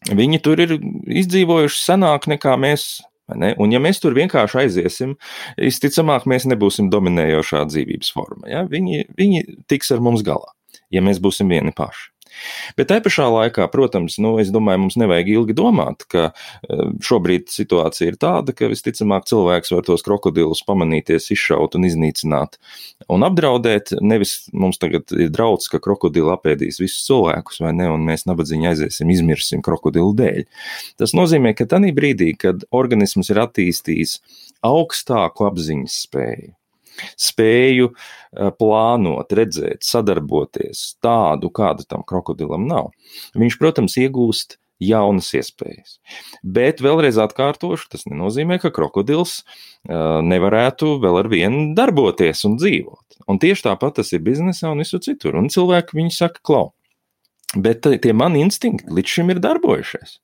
Viņi tur ir izdzīvojuši senāk nekā mēs, ne? Un ja mēs tur vienkārši aiziesim, visticamāk mēs nebūsim dominējošā dzīvības forma. Ja? Viņi tiks ar mums galā, ja mēs būsim vieni paši. Bet tai pašā laikā, protams, es domāju, mums nevajag ilgi domāt, ka šobrīd situācija ir tāda, ka visticamāk cilvēks var tos krokodilus pamanīties, izšaut un iznīcināt un apdraudēt. Nevis mums tagad ir draudz, ka krokodili apēdīs visus cilvēkus, vai ne, un mēs nabadzīgi aiziesim, izmirsim krokodilu dēļ. Tas nozīmē, ka tanī brīdī, kad organisms ir attīstījis augstāku apziņas spēju plānot, redzēt, sadarboties tādu, kāda tam krokodilam nav. Viņš, protams, iegūst jaunas iespējas. Bet vēlreiz atkārtošu, tas nenozīmē, ka krokodils nevarētu vēl ar vienu darboties un dzīvot. Un tieši tāpat tas ir biznesā un visur citur. Un cilvēki viņi saka, klau, bet tie mani instinkti līdz šim ir darbojušies.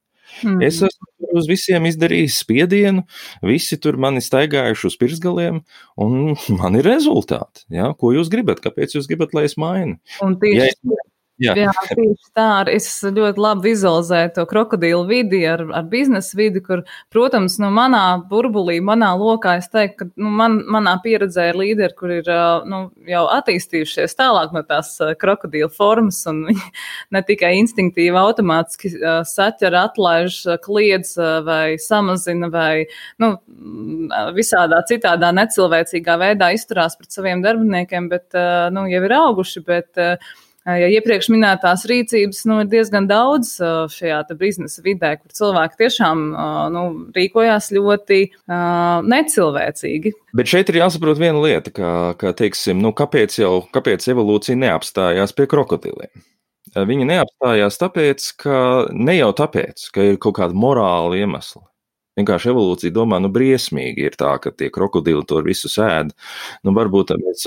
Es esmu uz visiem izdarījis spiedienu, visi tur mani staigājuši uz pirksgaliem, un man ir rezultāti. Ja? Ko jūs gribat? Kāpēc jūs gribat, lai es mainu? Un tieši Jā, tieši tā. Es ļoti labi vizualizēju to krokodilu vidi ar biznesa vidi, kur, protams, manā burbulī, manā lokā es teiktu, ka manā pieredzē ir līderi, kur ir jau attīstījušies tālāk no tās krokodilu formas, un viņi ne tikai instinktīvi automātiski saķer, atlaiž, kliedz vai samazina vai visādā citādā necilvēcīgā veidā izturās pret saviem darbiniekiem, bet jau ir auguši, bet ja iepriekš minētās rīcības ir diezgan daudz šajā biznesa vidē, kur cilvēki tiešām rīkojās ļoti necilvēcīgi. Bet šeit ir jāsaprot viena lieta, ka teiksim, kāpēc evolūcija neapstājās pie krokodiliem? Viņi neapstājās tāpēc, ne jau tāpēc, ka ir kaut kāda morāla iemesla. Vienkārši evolūcija domā, briesmīgi ir tā, ka tie krokodili to visu ēd. Varbūt mēs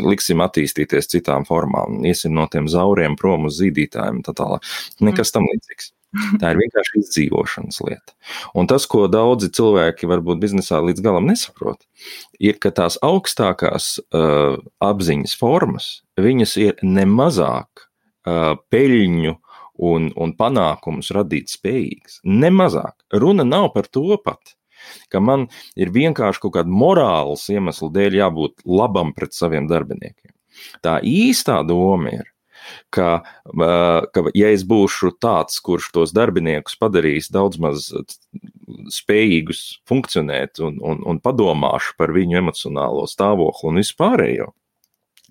liksim attīstīties citām formām, iesim no tiem zauriem prom uz zīdītājiem, tā tālāk. Nekas tam līdzīgs. Tā ir vienkārši izdzīvošanas lieta. Un tas, ko daudzi cilvēki varbūt biznesā līdz galam nesaprot, ir, ka tās augstākās apziņas formas, viņas ir nemazāk peļņu un panākumus radīt spējīgs. Nemazāk. Runa nav par to pat, ka man ir vienkārši kaut kāda morāls iemesla dēļ jābūt labam pret saviem darbiniekiem. Tā īstā doma ir, ka ja es būšu tāds, kurš tos darbiniekus padarīs daudz maz spējīgus funkcionēt un padomāšu par viņu emocionālo stāvokli un vispārējo,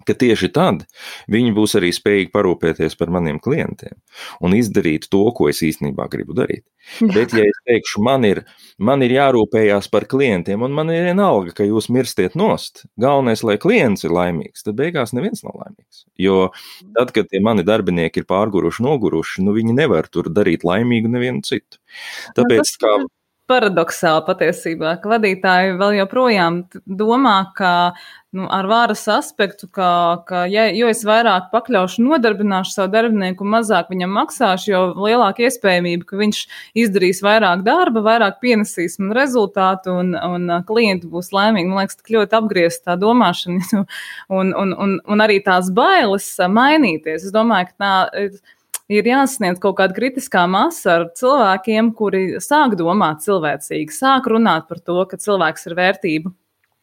ka tieši tad viņi būs arī spējīgi parūpēties par maniem klientiem un izdarīt to, ko es īstenībā gribu darīt. Bet, ja es teikšu, man ir jārūpējās par klientiem un man ir vienalga, ka jūs mirstiet nost, galvenais, lai klients ir laimīgs, tad beigās neviens nav laimīgs. Jo tad, kad tie mani darbinieki ir pārguruši, noguruši, viņi nevar tur darīt laimīgu nevienu citu. Tāpēc, paradoxāli patiesībā, ka vadītāji vēl joprojām domā, ka ar varas aspektu, jo es vairāk pakļaušu, nodarbināšu savu darbinieku un mazāk viņam maksāšu, jo lielāka iespējamība, ka viņš izdarīs vairāk darba, vairāk pienesīs man rezultātu un klienti būs laimīgi. Man liekas, tik ļoti apgriezt tā domāšana un arī tās bailes mainīties. Es domāju, ka tā ir jāsasniedz kaut kāda kritiskā masa ar cilvēkiem, kuri sāk domāt cilvēcīgi, sāk runāt par to, ka cilvēks ir vērtība.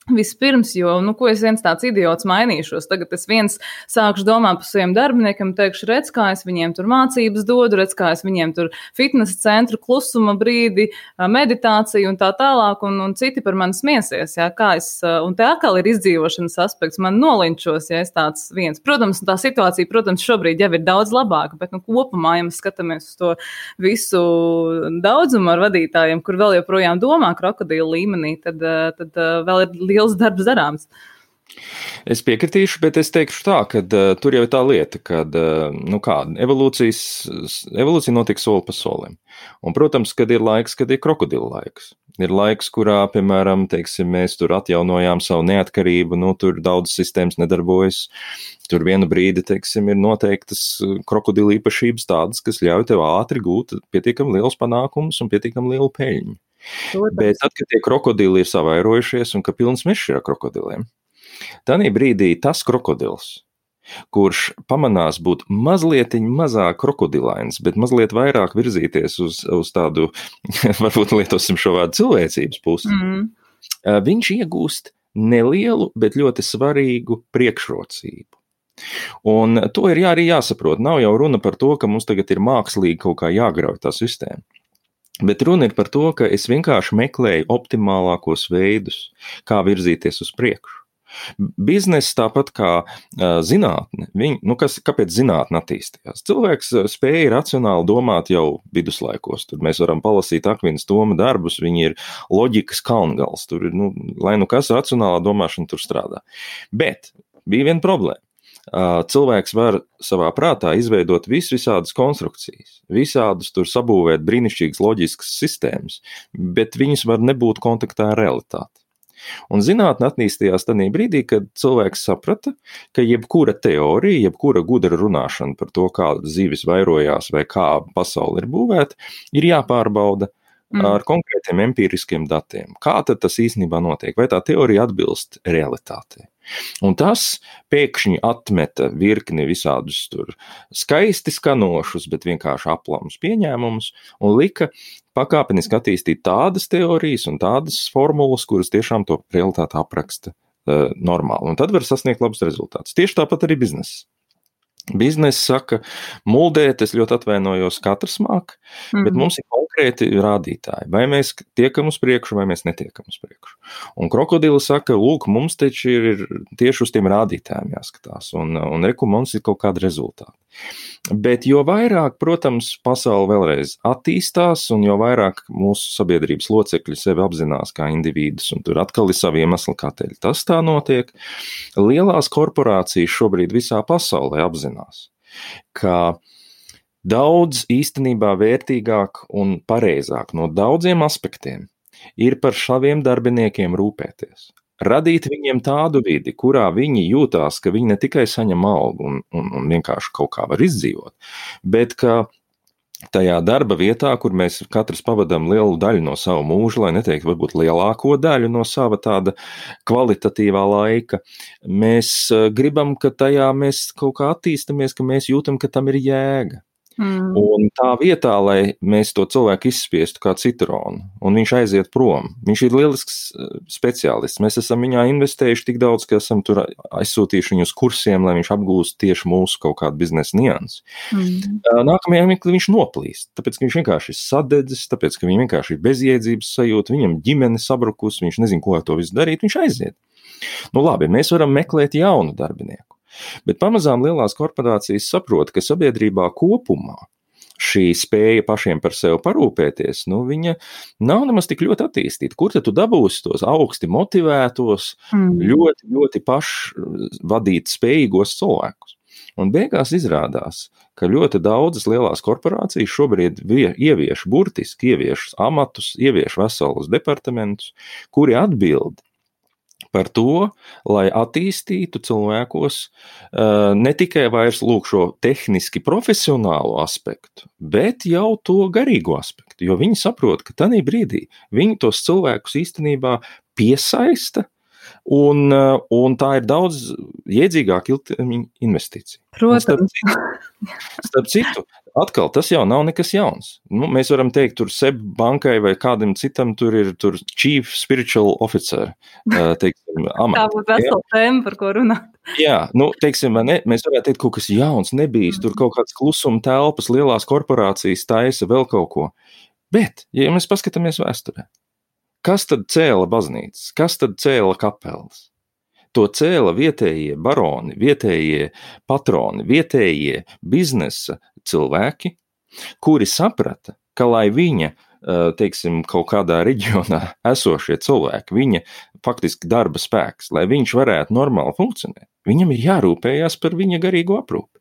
Vispirms, jo, ko es viens tāds idiots mainīšos, tagad es viens sākšu domāt par saviem darbiniekiem, teikšu, redz, kā es viņiem tur mācības dodu, redz, kā es viņiem tur fitnesa centru, klusuma brīdi, meditāciju un tā tālāk, un citi par mani smiesies, jā, un te atkal ir izdzīvošanas aspekts, man nolinčos, ja es tāds viens. Protams, tā situācija, šobrīd jau ir daudz labāka, bet, kopumā, ja mēs skatāmies uz to visu daudzumu ar vadītājiem, kur vēl joprojām domā krokodilu līmenī, tad vēl ir liels darbs darāms. Es piekritīšu, bet es teikšu tā, ka tur jau ir tā lieta, ka evolūcija notiek soli pa solim. Un, protams, kad ir laiks, kad ir krokodila laiks. Ir laiks, kurā, piemēram, mēs tur atjaunojām savu neatkarību, tur daudz sistēmas nedarbojas. Tur vienu brīdi, ir noteiktas krokodila īpašības tādas, kas ļauj tev ātri gūt pietiekami liels panākums un pietiekami lielu peļņu. Bet tad, kad tie krokodili ir savairojušies un ka pilns mežs ir ar krokodiliem, tādā brīdī tas krokodils, kurš pamanās būt mazliet mazāk krokodilains, bet mazliet vairāk virzīties uz tādu, varbūt lietosim šo vārdu cilvēcības pusi, viņš iegūst nelielu, bet ļoti svarīgu priekšrocību. Un to ir arī jāsaprot. Nav jau runa par to, ka mums tagad ir mākslīgi kaut kā jāgrauj tā sistēma. Bet runa ir par to, ka es vienkārši meklēju optimālākos veidus, kā virzīties uz priekšu. Bizness tāpat kā zinātne, kāpēc zinātne attīstījās? Cilvēks spēja racionāli domāt jau viduslaikos, tur mēs varam palasīt Akvinas Toma darbus, viņi ir loģikas kalngals, tur ir, lai kas racionālā domāšana tur strādā. Bet bija viena problēma. Cilvēks var savā prātā izveidot visādas konstrukcijas, visādus tur sabūvēt brīnišķīgas loģiskas sistēmas, bet viņas var nebūt kontaktā ar realitāti. Un zinātne attīstījās tajā brīdī, kad cilvēks saprata, ka jebkura teorija, jebkura gudra runāšana par to, kā zivis vairojās vai kā pasaule ir būvēta, ir jāpārbauda ar konkrētiem empiriskiem datiem. Kā tad tas īstenībā notiek? Vai tā teorija atbilst realitātei? Un tas pēkšņi atmeta virkni visādus tur skaisti skanošus, bet vienkārši aplamus pieņēmumus un lika pakāpeniski attīstīt tādas teorijas un tādas formulas, kuras tiešām to realitāti apraksta normāli. Un tad var sasniegt labus rezultātus. Tieši tāpat arī bizness. Bizness saka, muldēt, es ļoti atvainojos, katrs māk, bet mums ir konkrēti rādītāji. Vai mēs tiekam uz priekšu, vai mēs netiekam uz priekšu. Un krokodili saka, lūk, mums taču ir tieši uz tiem rādītājiem jāskatās, un reku mums ir kaut kāda rezultāta. Bet jo vairāk, protams, pasaule vēlreiz attīstās, un jo vairāk mūsu sabiedrības locekļi sevi apzinās kā individus, un tur atkal ir savi iemesli, kāpēc tas tā notiek, lielās korporācijas šobrīd visā pasaulē apzinās, ka daudz īstenībā vērtīgāk un pareizāk no daudziem aspektiem ir par saviem darbiniekiem rūpēties. Radīt viņiem tādu vidi, kurā viņi jūtās, ka viņi ne tikai saņem algu un vienkārši kaut kā var izdzīvot, bet ka tajā darba vietā, kur mēs katrs pavadām lielu daļu no savu mūžu, lai neteiktu varbūt lielāko daļu no sava tāda kvalitatīvā laika, mēs gribam, ka tajā mēs kaut kā attīstamies, ka mēs jūtam, ka tam ir jēga. Un tā vietā, lai mēs to cilvēku izspiestu kā citronu, un viņš aiziet prom, viņš ir lielisks speciālists. Mēs esam viņā investējuši tik daudz, ka esam tur aizsūtījuši viņu uz kursiem, lai viņš apgūst tieši mūsu kaut kādu biznesa niansi. Nākamajā mirklī viņš noplīst, tāpēc, ka viņš vienkārši ir sadedzis, tāpēc, ka viņam vienkārši ir bezjēdzības sajūta, viņam ģimene sabrukus, viņš nezin, ko ar to visu darīt, viņš aiziet. Nu labi, mēs varam meklēt jaunu darbinieku. Bet pamazām lielās korporācijas saprot, ka sabiedrībā kopumā šī spēja pašiem par sevi parūpēties, viņa nav nemaz tik ļoti attīstīta. Kur tad tu dabūsi tos augsti motivētos, ļoti, ļoti pašvadīt spējīgos cilvēkus? Un beigās izrādās, ka ļoti daudzas lielās korporācijas šobrīd burtiski ievieš amatus, ievieš veselus departamentus, kuri atbild par to, lai attīstītu cilvēkos ne tikai vairs šo tehniski profesionālo aspektu, bet jau to garīgo aspektu, jo viņi saprot, ka tajā brīdī viņi tos cilvēkus īstenībā piesaista, un tā ir daudz jēdzīgāka ilgtermiņa investīcija. Protams. Starp citu, atkal tas jau nav nekas jauns. Mēs varam teikt, tur SEB bankai vai kādam citam tur ir Chief Spiritual Officer, teiksim, amats. Tā būtu vesela tēma, par ko runāt. Jā, teiksim, mēs varētu teikt, kaut kas jauns nebijis, tur kaut kāds klusuma telpas, lielās korporācijas taisa vēl kaut ko. Bet, ja mēs paskatāmies vēsturē, kas tad cēla baznīcas, kas tad cēla kapelas? To cēla vietējie baroni, vietējie patroni, vietējie biznesa cilvēki, kuri saprata, ka lai viņa, teiksim, kaut kādā reģionā esošie cilvēki, viņa faktiski darba spēks, lai viņš varētu normāli funkcionēt, viņam ir jārūpējās par viņa garīgo aprūpi.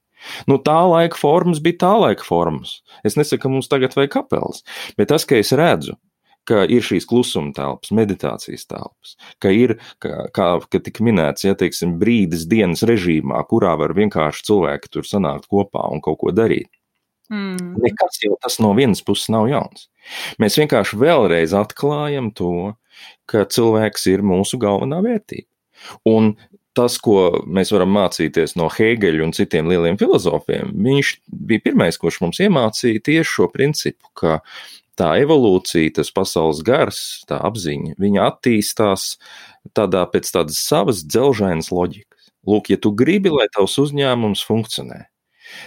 Tā laika formas bija tā laika formas. Es nesaku, ka mums tagad vajag kapelas, bet tas, ka es redzu, ka ir šīs klusuma telpas, meditācijas telpas, ka ir, kā tika minēts, teiksim, brīdis dienas režīmā, kurā var vienkārši cilvēki tur sanākt kopā un kaut ko darīt. Nekas jau tas no vienas puses nav jauns. Mēs vienkārši vēlreiz atklājam to, ka cilvēks ir mūsu galvenā vērtība. Un tas, ko mēs varam mācīties no Hēgeļa un citiem lieliem filozofiem, viņš bija pirmais, kurš mums iemācīja tieši šo principu, ka tā evolūcija, tas pasaules gars, tā apziņa, viņa attīstās pēc tādas savas dzelžainas loģikas. Lūk, ja tu gribi, lai tavs uzņēmums funkcionē,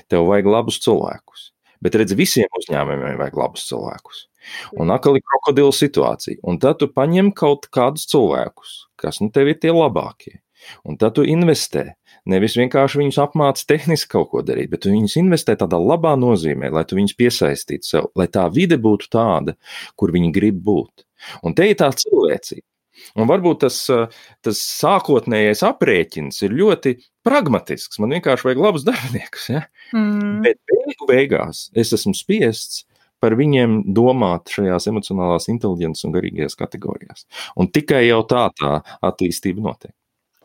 tev vajag labus cilvēkus. Bet redz, visiem uzņēmumiem vajag labus cilvēkus. Un atkal ir krokodila situācija. Un tad tu paņem kaut kādus cilvēkus, kas tev ir tie labākie. Un tad tu investē. Nevis vienkārši viņus apmāci tehniski kaut ko darīt, bet tu viņus investē tādā labā nozīmē, lai tu viņus piesaistītu sev, lai tā vide būtu tāda, kur viņi grib būt. Un te ir tā cilvēcība. Un varbūt tas sākotnējais aprēķins ir ļoti pragmatisks. Man vienkārši vajag labus darbiniekus. Ja? Bet beigās es esmu spiests par viņiem domāt šajās emocionālās inteliģences un garīgajās kategorijās. Un tikai jau tā attīstība notiek.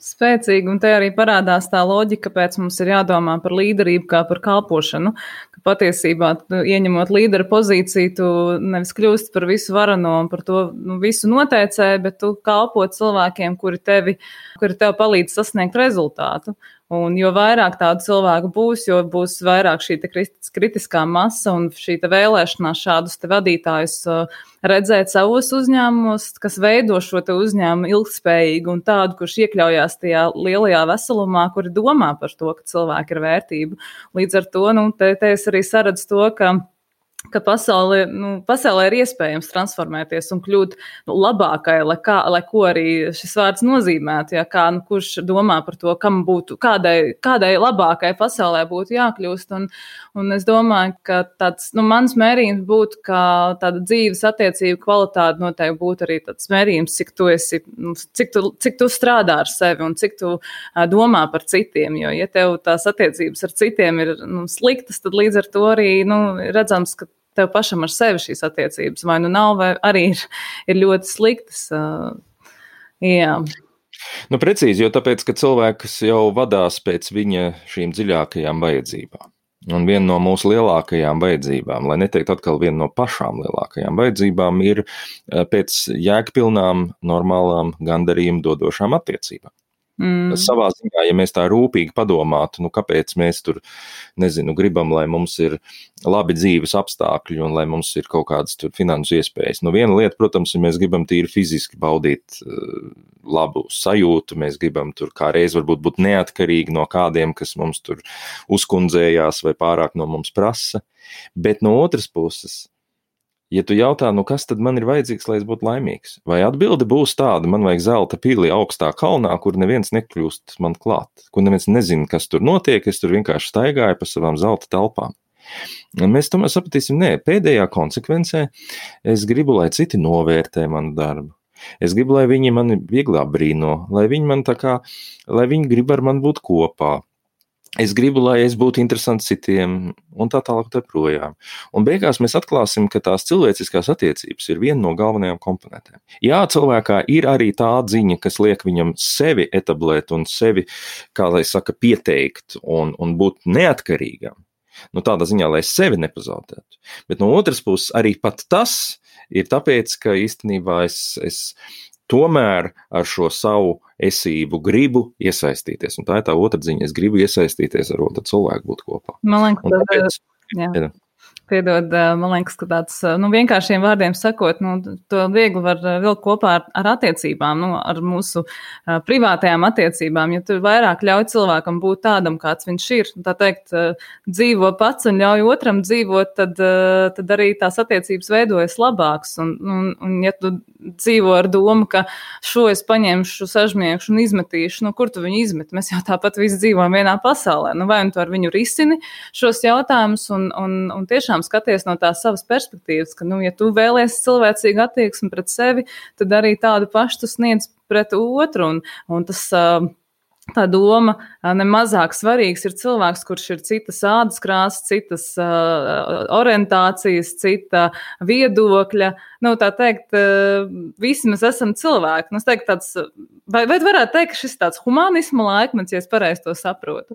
Spēcīgi, un te arī parādās tā loģika, kāpēc mums ir jādomā par līderību kā par kalpošanu, ka patiesībā ieņemot līdera pozīciju, tu nevis kļūst par visu varano un par to visu noteicēju, bet tu kalpo cilvēkiem, kuri tev palīdz sasniegt rezultātu. Un jo vairāk tādu cilvēku būs, jo būs vairāk šī kritiskā masa un šī vēlēšanās šādus vadītājus redzēt savos uzņēmumos, kas veido šo uzņēmumu ilgspējīgu un tādu, kurš iekļaujās tajā lielajā veselumā, kuri domā par to, ka cilvēki ir vērtība. Līdz ar to, te es arī saredzu to, ka ka pasaulē ir iespējams transformēties un kļūt labākai, lai ko arī šis vārds nozīmētu. Ja, kurš domā par to, kādai labākai pasaulē būtu jākļūst. Un es domāju, ka tāds mans mērījums būtu, ka tāda dzīves attiecību kvalitāte noteikti būtu arī tāds mērījums, cik tu strādā ar sevi un cik tu domā par citiem. Jo, ja tev tās attiecības ar citiem ir sliktas, tad līdz ar to arī redzams, ka tev pašam ar sevi šīs attiecības vai nav, vai arī ir ļoti sliktas. Jā. Precīzi, jo tāpēc, ka cilvēks jau vadās pēc viņa šīm dziļākajām vajadzībām. Un viena no mūsu lielākajām vajadzībām, lai neteikt atkal viena no pašām lielākajām vajadzībām, ir pēc jēgpilnām, normālām, gandarījumu dodošām attiecībām. Savā ziņā, ja mēs tā rūpīgi padomātu, kāpēc mēs tur, gribam, lai mums ir labi dzīves apstākļi un lai mums ir kaut kādas tur finansu iespējas. Viena lieta, protams, ja mēs gribam tīri fiziski baudīt labu sajūtu, mēs gribam tur kā reiz varbūt būt neatkarīgi no kādiem, kas mums tur uzkundzējās vai pārāk no mums prasa, bet no otras puses, ja tu jautā, kas tad man ir vajadzīgs, lai es būtu laimīgs? Vai atbilde būs tāda, man vajag zelta pili augstā kalnā, kur neviens nekļūst man klāt, kur neviens nezina, kas tur notiek, es tur vienkārši staigāju pa savām zelta telpām. Un mēs tomēr sapratīsim, pēdējā konsekvencē es gribu, lai citi novērtē manu darbu. Es gribu, lai viņi mani vieglā brīno, lai viņi grib ar mani būt kopā. Es gribu, lai es būtu interesants citiem, un tā tālāk tā projām. Un beigās mēs atklāsim, ka tās cilvēciskās attiecības ir viena no galvenajām komponentēm. Jā, cilvēkā ir arī tā ziņa, kas liek viņam sevi etablēt un sevi, kā lai saka, pieteikt un būt neatkarīgam. Tādā ziņā, lai sevi nepazaudētu. Bet no otras puses arī pat tas ir tāpēc, ka īstenībā es tomēr ar šo savu esību gribu iesaistīties. Un tā ir tā otra ziņa. Es gribu iesaistīties ar otru cilvēku, būt kopā. Man liekas, Piedod, man liekas, ka tāds vienkāršiem vārdiem sakot, to viegli var vilkt kopā ar attiecībām, ar mūsu privātajām attiecībām. Ja tu vairāk ļauj cilvēkam būt tādam, kāds viņš ir, tā teikt, dzīvo pats un ļauj otram dzīvot, tad arī tās attiecības veidojas labāks. Un ja tu dzīvo ar domu, ka šo es paņemšu, sažmiekšu un izmetīšu, kur tu viņu izmet? Mēs jau tāpat visi dzīvojam vienā pasaulē. Vai tu ar viņu risini šos jautājumus un tiešām skaties no tās savas perspektīvas, ka, ja tu vēlies cilvēcīgu attieksmi pret sevi, tad arī tādu pašu tu sniedz pret otru, un tas tā doma nemazāk svarīgs ir cilvēks, kurš ir citas ādas krāsas, citas orientācijas, cita viedokļa. Tā teikt, visi mēs esam cilvēki. Es teiktu, vai varētu teikt, ka šis tāds humanisma laikmets, ja es pareizi to saprotu?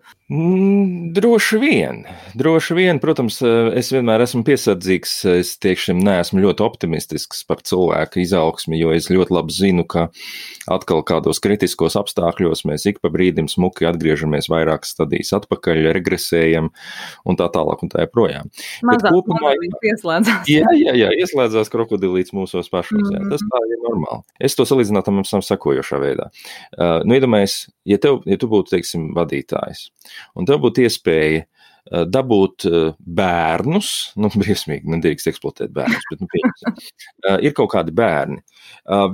Droši vien, protams, es vienmēr esmu piesardzīgs, es tiešām neesmu ļoti optimistisks par cilvēku izaugsmi, jo es ļoti labi zinu, ka atkal kādos kritiskos apstākļos mēs ik pa brīdim smuki atgriežamies vairākas stadijas atpakaļ, regresējam un tā tālāk un tā joprojām. Mazāk ieslēdzās. Jā, ieslēdzās krokodilīts mūsos pašos. Jā, tas tā ir normāli. Es to salīdzinātu mums sakojošā veidā. Iedomājies, ja tu būtu, teiksim, vadītājs, un tev būtu iespēja dabūt bērnus, briesmīgi, nedrīkst eksploatēt bērnus, bet ir kaut kādi bērni.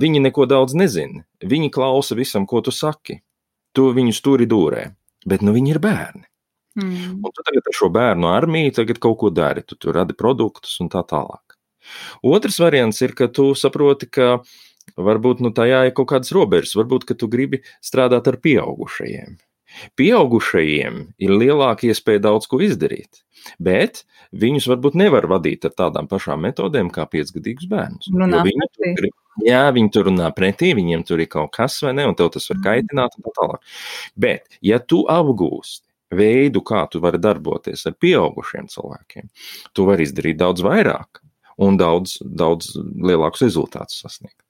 Viņi neko daudz nezina. Viņi klausa visam, ko tu saki. Tu viņus turi dūrē, bet viņi ir bērni. Un tu tagad ar šo bērnu armiju tagad kaut ko dari, tu radi produktus un tā tālāk. Otrs variants ir, ka tu saproti, ka varbūt tajā ir kaut kādas robežas, varbūt, ka tu gribi strādāt ar pieaugušajiem. Pieaugušajiem ir lielāka iespēja daudz ko izdarīt, bet viņus varbūt nevar vadīt ar tādām pašām metodēm kā 5-gadīgus bērnus. Viņi tur runā pretī, viņiem tur ir kaut kas vai ne, un tev tas var kaitināt un tā tālāk. Bet, ja tu apgūsti veidu, kā tu vari darboties ar pieaugušiem cilvēkiem, tu vari izdarīt daudz vairāk un daudz lielākus rezultātus sasniegt.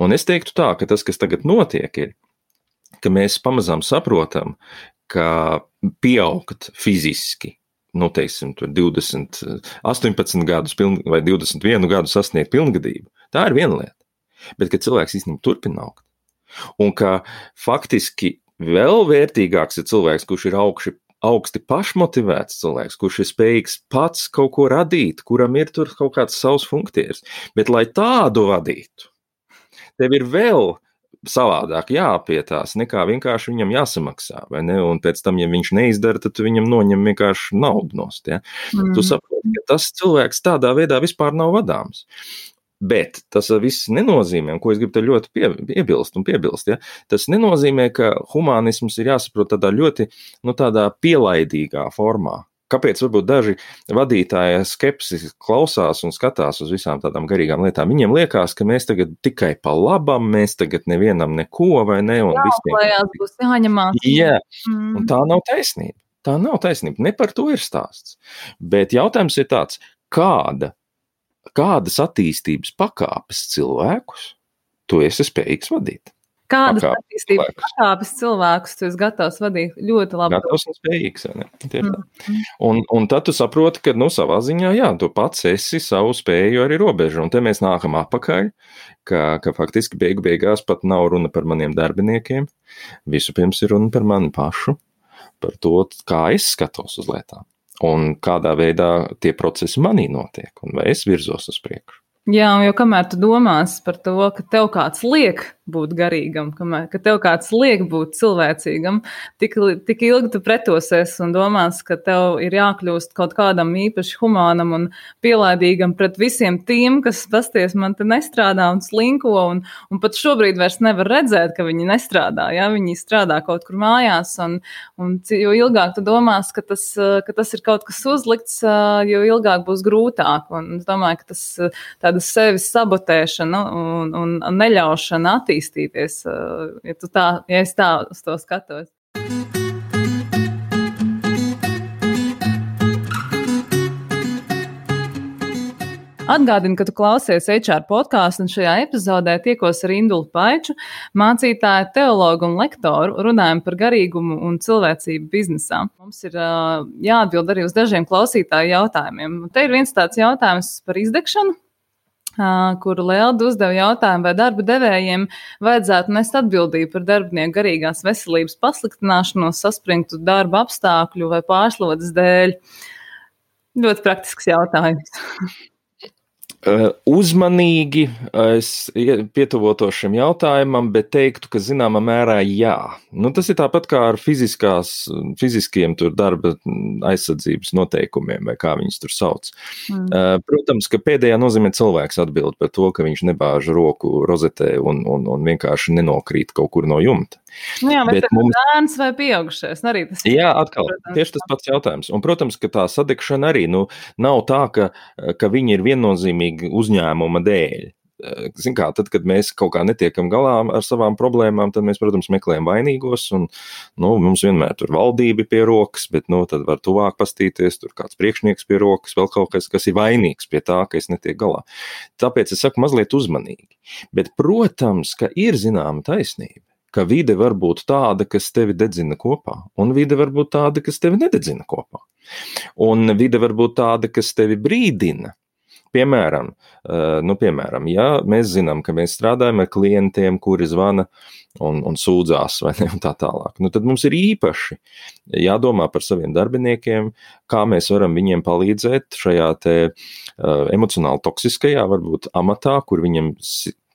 Un es teiktu tā, ka tas, kas tagad notiek, ir, ka mēs pamazām saprotam, ka pieaugt fiziski, teiksim, 18 gadus vai 21 gadu sasniegt pilngadību, tā ir viena lieta. Bet, ka cilvēks īstenībā turpina augt. Un ka faktiski vēl vērtīgāks ir cilvēks, kurš ir augsti pašmotivēts cilvēks, kurš ir spējīgs pats kaut ko radīt, kuram ir tur kaut kāds savs funkcijas. Bet, lai tādu vadītu, tev ir vēl savādāk jāpietās, nekā vienkārši viņam jāsamaksā, vai ne? Un pēc tam, ja viņš neizdara, tad tu viņam noņem vienkārši naudu nost, ja? Tu saproti, ka tas cilvēks tādā veidā vispār nav vadāms. Bet tas viss nenozīmē, un ko es gribu te ļoti piebilst, ja? Tas nenozīmē, ka humanisms ir jāsaprot tādā ļoti, tādā pielaidīgā formā. Kāpēc varbūt daži vadītāji skepsis klausās un skatās uz visām tādām garīgām lietām? Viņiem liekas, ka mēs tagad tikai pa labam, mēs tagad nevienam neko, vai ne? Un jāuklējās, būs jāņemās. Jā, un tā nav taisnība. Tā nav taisnība. Ne par to ir stāsts. Bet jautājums ir tāds, kādas attīstības pakāpes cilvēkus tu esi spējīgs vadīt? Kādas attīstības pakāpes cilvēkus tu esi gatavs vadīt? Ļoti labi. Gatavs un spējīgs, vai ne? Un tad tu saproti, ka, savā ziņā, jā, tu pats esi savu spēju arī robežu. Un te mēs nākam atpakaļ, ka faktiski beigās pat nav runa par maniem darbiniekiem. Vispirms ir runa par mani pašu, par to, kā es skatos uz lietām. Un kādā veidā tie procesi manī notiek, un vai es virzos uz priekšu. Jā, jo kamēr tu domās par to, ka tev kāds liek būt garīgam, ka tev kāds liek būt cilvēcīgam, tik ilgi tu pretosies un domās, ka tev ir jākļūst kaut kādam īpaši humānam un pielaidīgam pret visiem tiem, kas pasties man te nestrādā un slinko un pat šobrīd vairs nevar redzēt, ka viņi nestrādā, ja? Viņi strādā kaut kur mājās un jo ilgāk tu domās, ka tas ir kaut kas uzlikts, jo ilgāk būs grūtāk. Un es domāju, ka tas tāda sevis sabotēšana un neļaušana attīstīties, ja es tā uz to skatos. Atgādinu, ka tu klausies HR podcastu, un šajā epizodē tiekos ar Indulu Paiču, mācītāju, teologu un lektoru, runājam par garīgumu un cilvēcību biznesā. Mums ir jāatbild arī uz dažiem klausītāju jautājumiem. Te ir viens tāds jautājums par izdegšanu, kuru Lelda uzdeva jautājumu, vai darba devējiem vajadzētu nest atbildību par darbinieku garīgās veselības pasliktināšanos, saspringtu darba apstākļu vai pārslodzes dēļ. Ļoti praktisks jautājums. Uzmanīgi es pietuvotos šim jautājumam, bet teiktu, ka zināmā mērā jā. Tas ir tāpat kā ar fiziskiem tur darba aizsardzības noteikumiem, vai kā viņus tur sauc. Protams, ka pēdējā nozīmē cilvēks atbild par to, ka viņš nebāž roku rozetē un vienkārši nenokrīt kaut kur no jumta. Jā, bet bērns vai pieaugušais? Arī tas ir. Jā, atkal, tieši tas pats jautājums. Un, protams, ka tā sadegšana arī nav tā, ka viņi ir viennozīmīgi uzņēmuma dēļ. Zin kā, tad, kad mēs kaut kā netiekam galā ar savām problēmām, tad mēs, protams, meklējam vainīgos, un mums vienmēr tur valdība pie rokas, bet tad var tuvāk pastīties, tur kāds priekšnieks pie rokas, vēl kaut kas ir vainīgs pie tā, ka es netieku galā. Tāpēc es saku mazliet uzmanīgi. Bet, protams, ka ir zināma taisnība, ka vide var būt tāda, kas tevi dedzina kopā, un vide var būt tāda, kas tevi nededzina kopā. Un vide var būt tāda, kas tevi brīdina. Piemēram, ja mēs zinām, ka mēs strādājam ar klientiem, kuri zvana un sūdzās, vai ne, un tā tālāk, tad mums ir īpaši jādomā par saviem darbiniekiem, kā mēs varam viņiem palīdzēt šajā te emocionāli toksiskajā, varbūt amatā, kur viņiem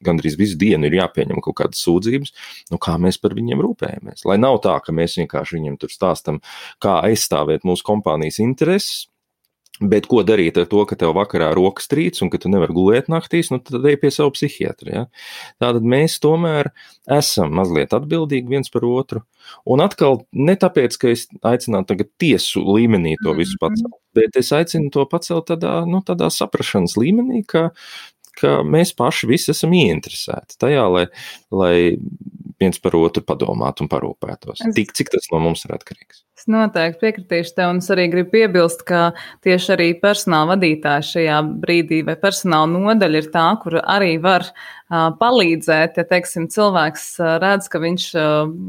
gandrīz visu dienu ir jāpieņem kaut kādas sūdzības, kā mēs par viņiem rūpējamies. Lai nav tā, ka mēs vienkārši viņiem tur stāstam, kā aizstāvēt mūsu kompānijas intereses, bet ko darīt ar to, ka tev vakarā rokas trīc un ka tu nevar gulēt naktīs, tad ej pie savu psihiatru. Ja? Tātad mēs tomēr esam mazliet atbildīgi viens par otru. Un atkal ne tāpēc, ka es aicinātu tagad tiesu līmenī to visu pacelt, bet es aicinu to pacelt tādā saprašanas līmenī, ka mēs paši visi esam ieinteresēti tajā, lai viens par otru padomātu un parūpētos. Cik tas no mums ir atkarīgs. Es noteikti piekritīšu tev, un es arī gribu piebilst, ka tieši arī personāla vadītāji šajā brīdī vai personāla nodaļa ir tā, kur arī var palīdzēt, ja, teiksim, cilvēks redz, ka viņš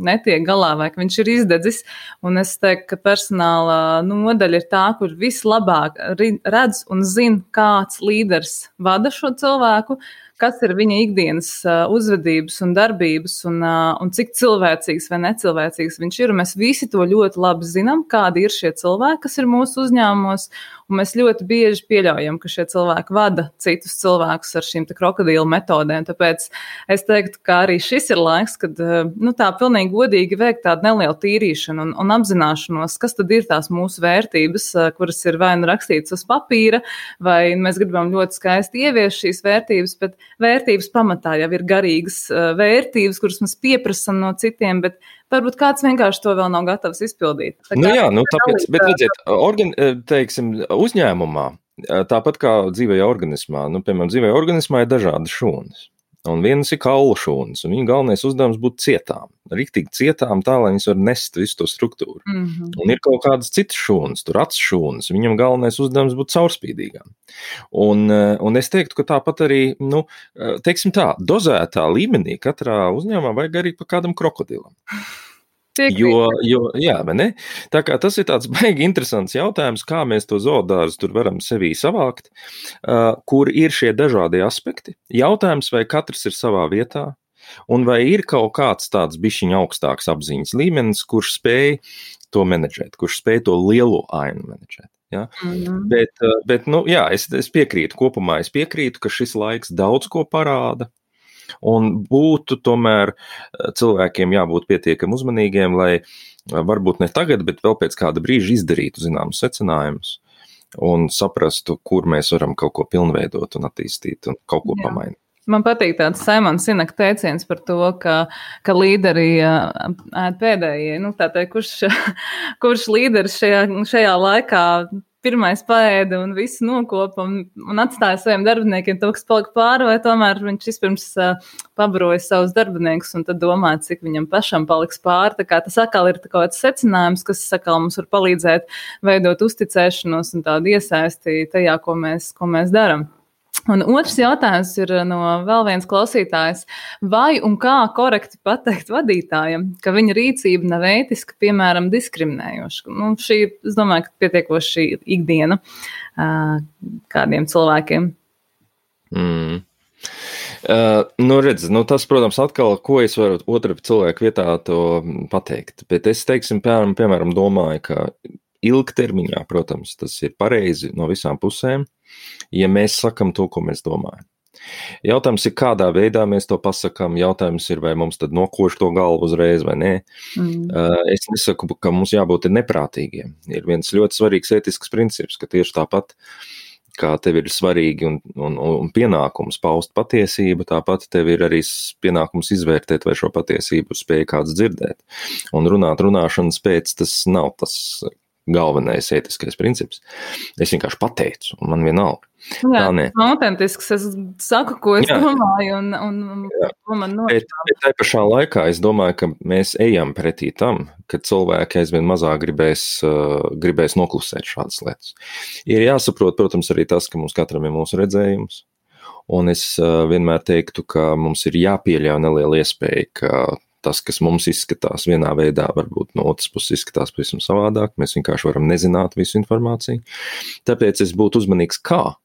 netiek galā vai ka viņš ir izdedzis, un es teiktu, ka personāla nodaļa ir tā, kur vislabāk redz un zina, kāds līderis vada šo cilvēku, kas ir viņa ikdienas uzvedības un darbības un cik cilvēcīgs vai necilvēcīgs viņš ir. Un mēs visi to ļoti labi zinām, kādi ir šie cilvēki, kas ir mūsu uzņēmumos, un mēs ļoti bieži pieļaujam, ka šie cilvēki vada citus cilvēkus ar šīm krokodīlu metodēm. Tāpēc es teiktu, ka arī šis ir laiks, kad tā pilnīgi godīgi veikt tādu nelielu tīrīšanu un apzināšanos, kas tad ir tās mūsu vērtības, kuras ir vai nu rakstītas uz papīra, vai mēs gribam ļoti skaisti ieviest šīs vērtības, bet vērtības pamatā jau ir garīgas vērtības, kuras mēs pieprasam no citiem, bet varbūt kāds vienkārši to vēl nav gatavs izpildīt. Tāpēc, bet redziet, teiksim, uzņēmumā, tāpat kā dzīvajā organismā, piemēram, dzīvajā organismā ir dažādi šūnas. Un vienas ir kaulu šūnas, un viņa galvenais uzdevums būtu cietām. Riktīgi cietām tā, lai viņas var nest visu to struktūru. Un ir kaut kādas citas šūnas, tur acu šūnas, viņam galvenais uzdevums būtu caurspīdīgām. Un es teiktu, ka tāpat arī, teiksim tā, dozētā līmenī katrā uzņēmumā vajag arī pa kādam krokodilam. Jā, vai ne? Tā kā tas ir tāds baigi interesants jautājums, kā mēs to zoodārzu tur varam sevī savākt, kur ir šie dažādie aspekti. Jautājums, vai katrs ir savā vietā, un vai ir kaut kāds tāds bišķiņa augstāks apziņas līmenis, kurš spēj to menedžēt, kurš spēj to lielo ainu menedžēt. Ja? Bet es piekrītu, kopumā es piekrītu, ka šis laiks daudz ko parāda. Un būtu tomēr cilvēkiem jābūt pietiekami uzmanīgiem, lai varbūt ne tagad, bet vēl pēc kāda brīža izdarītu zināmus secinājumus un saprastu, kur mēs varam kaut ko pilnveidot un attīstīt un kaut ko pamainīt. Man patīk tāds Simons Sineka teiciens par to, ka līderi ēd pēdējie. Kurš līderis šajā laikā pirmais paēda un visu nokopa un atstāja saviem darbiniekiem to, kas palika pāri, vai tomēr viņš vispirms pabaroja savus darbiniekus un tad domāja, cik viņam pašam paliks pāri. Tā kā tas atkal ir kaut kāds secinājums, kas atkal mums var palīdzēt veidot uzticēšanos un tādu iesaisti tajā, ko mēs daram. Un otrs jautājums ir no vēl viens klausītājs. Vai un kā korekti pateikt vadītājam, ka viņa rīcība nav ētiska, piemēram, diskriminējoša? Šī, es domāju, ka pietiekoši ikdiena kādiem cilvēkiem. Tas, protams, atkal, ko es varu otra cilvēku vietā to pateikt. Bet es, teiksim, piemēram, domāju, ka ilgtermiņā, protams, tas ir pareizi no visām pusēm, ja mēs sakam to, ko mēs domājam. Jautājums ir, kādā veidā mēs to pasakam, jautājums ir, vai mums tad nokoš to galvu uzreiz vai nē. Es nesaku, ka mums jābūt neprātīgiem. Ir viens ļoti svarīgs ētisks princips, ka tieši tāpat, kā tev ir svarīgi un pienākums paust patiesību, tāpat tev ir arī pienākums izvērtēt, vai šo patiesību spēj kāds dzirdēt. Un runāšanas pēc tas nav tas galvenais ētiskais princips. Es vienkārši pateicu, un man vienalga. Jā, autentisks. Es saku, ko es domāju, un ko man nošķiet. Bet tai pašā laikā es domāju, ka mēs ejam pretī tam, ka cilvēki aizvien mazāk gribēs noklusēt šādas lietas. Ir jāsaprot, protams, arī tas, ka mums katram ir mūsu redzējums, un es vienmēr teiktu, ka mums ir jāpieļauj neliela iespēja, ka tas, kas mums izskatās vienā veidā, varbūt no otras puses izskatās pavisam savādāk. Mēs vienkārši varam nezināt visu informāciju. Tāpēc es būtu uzmanīgs kā.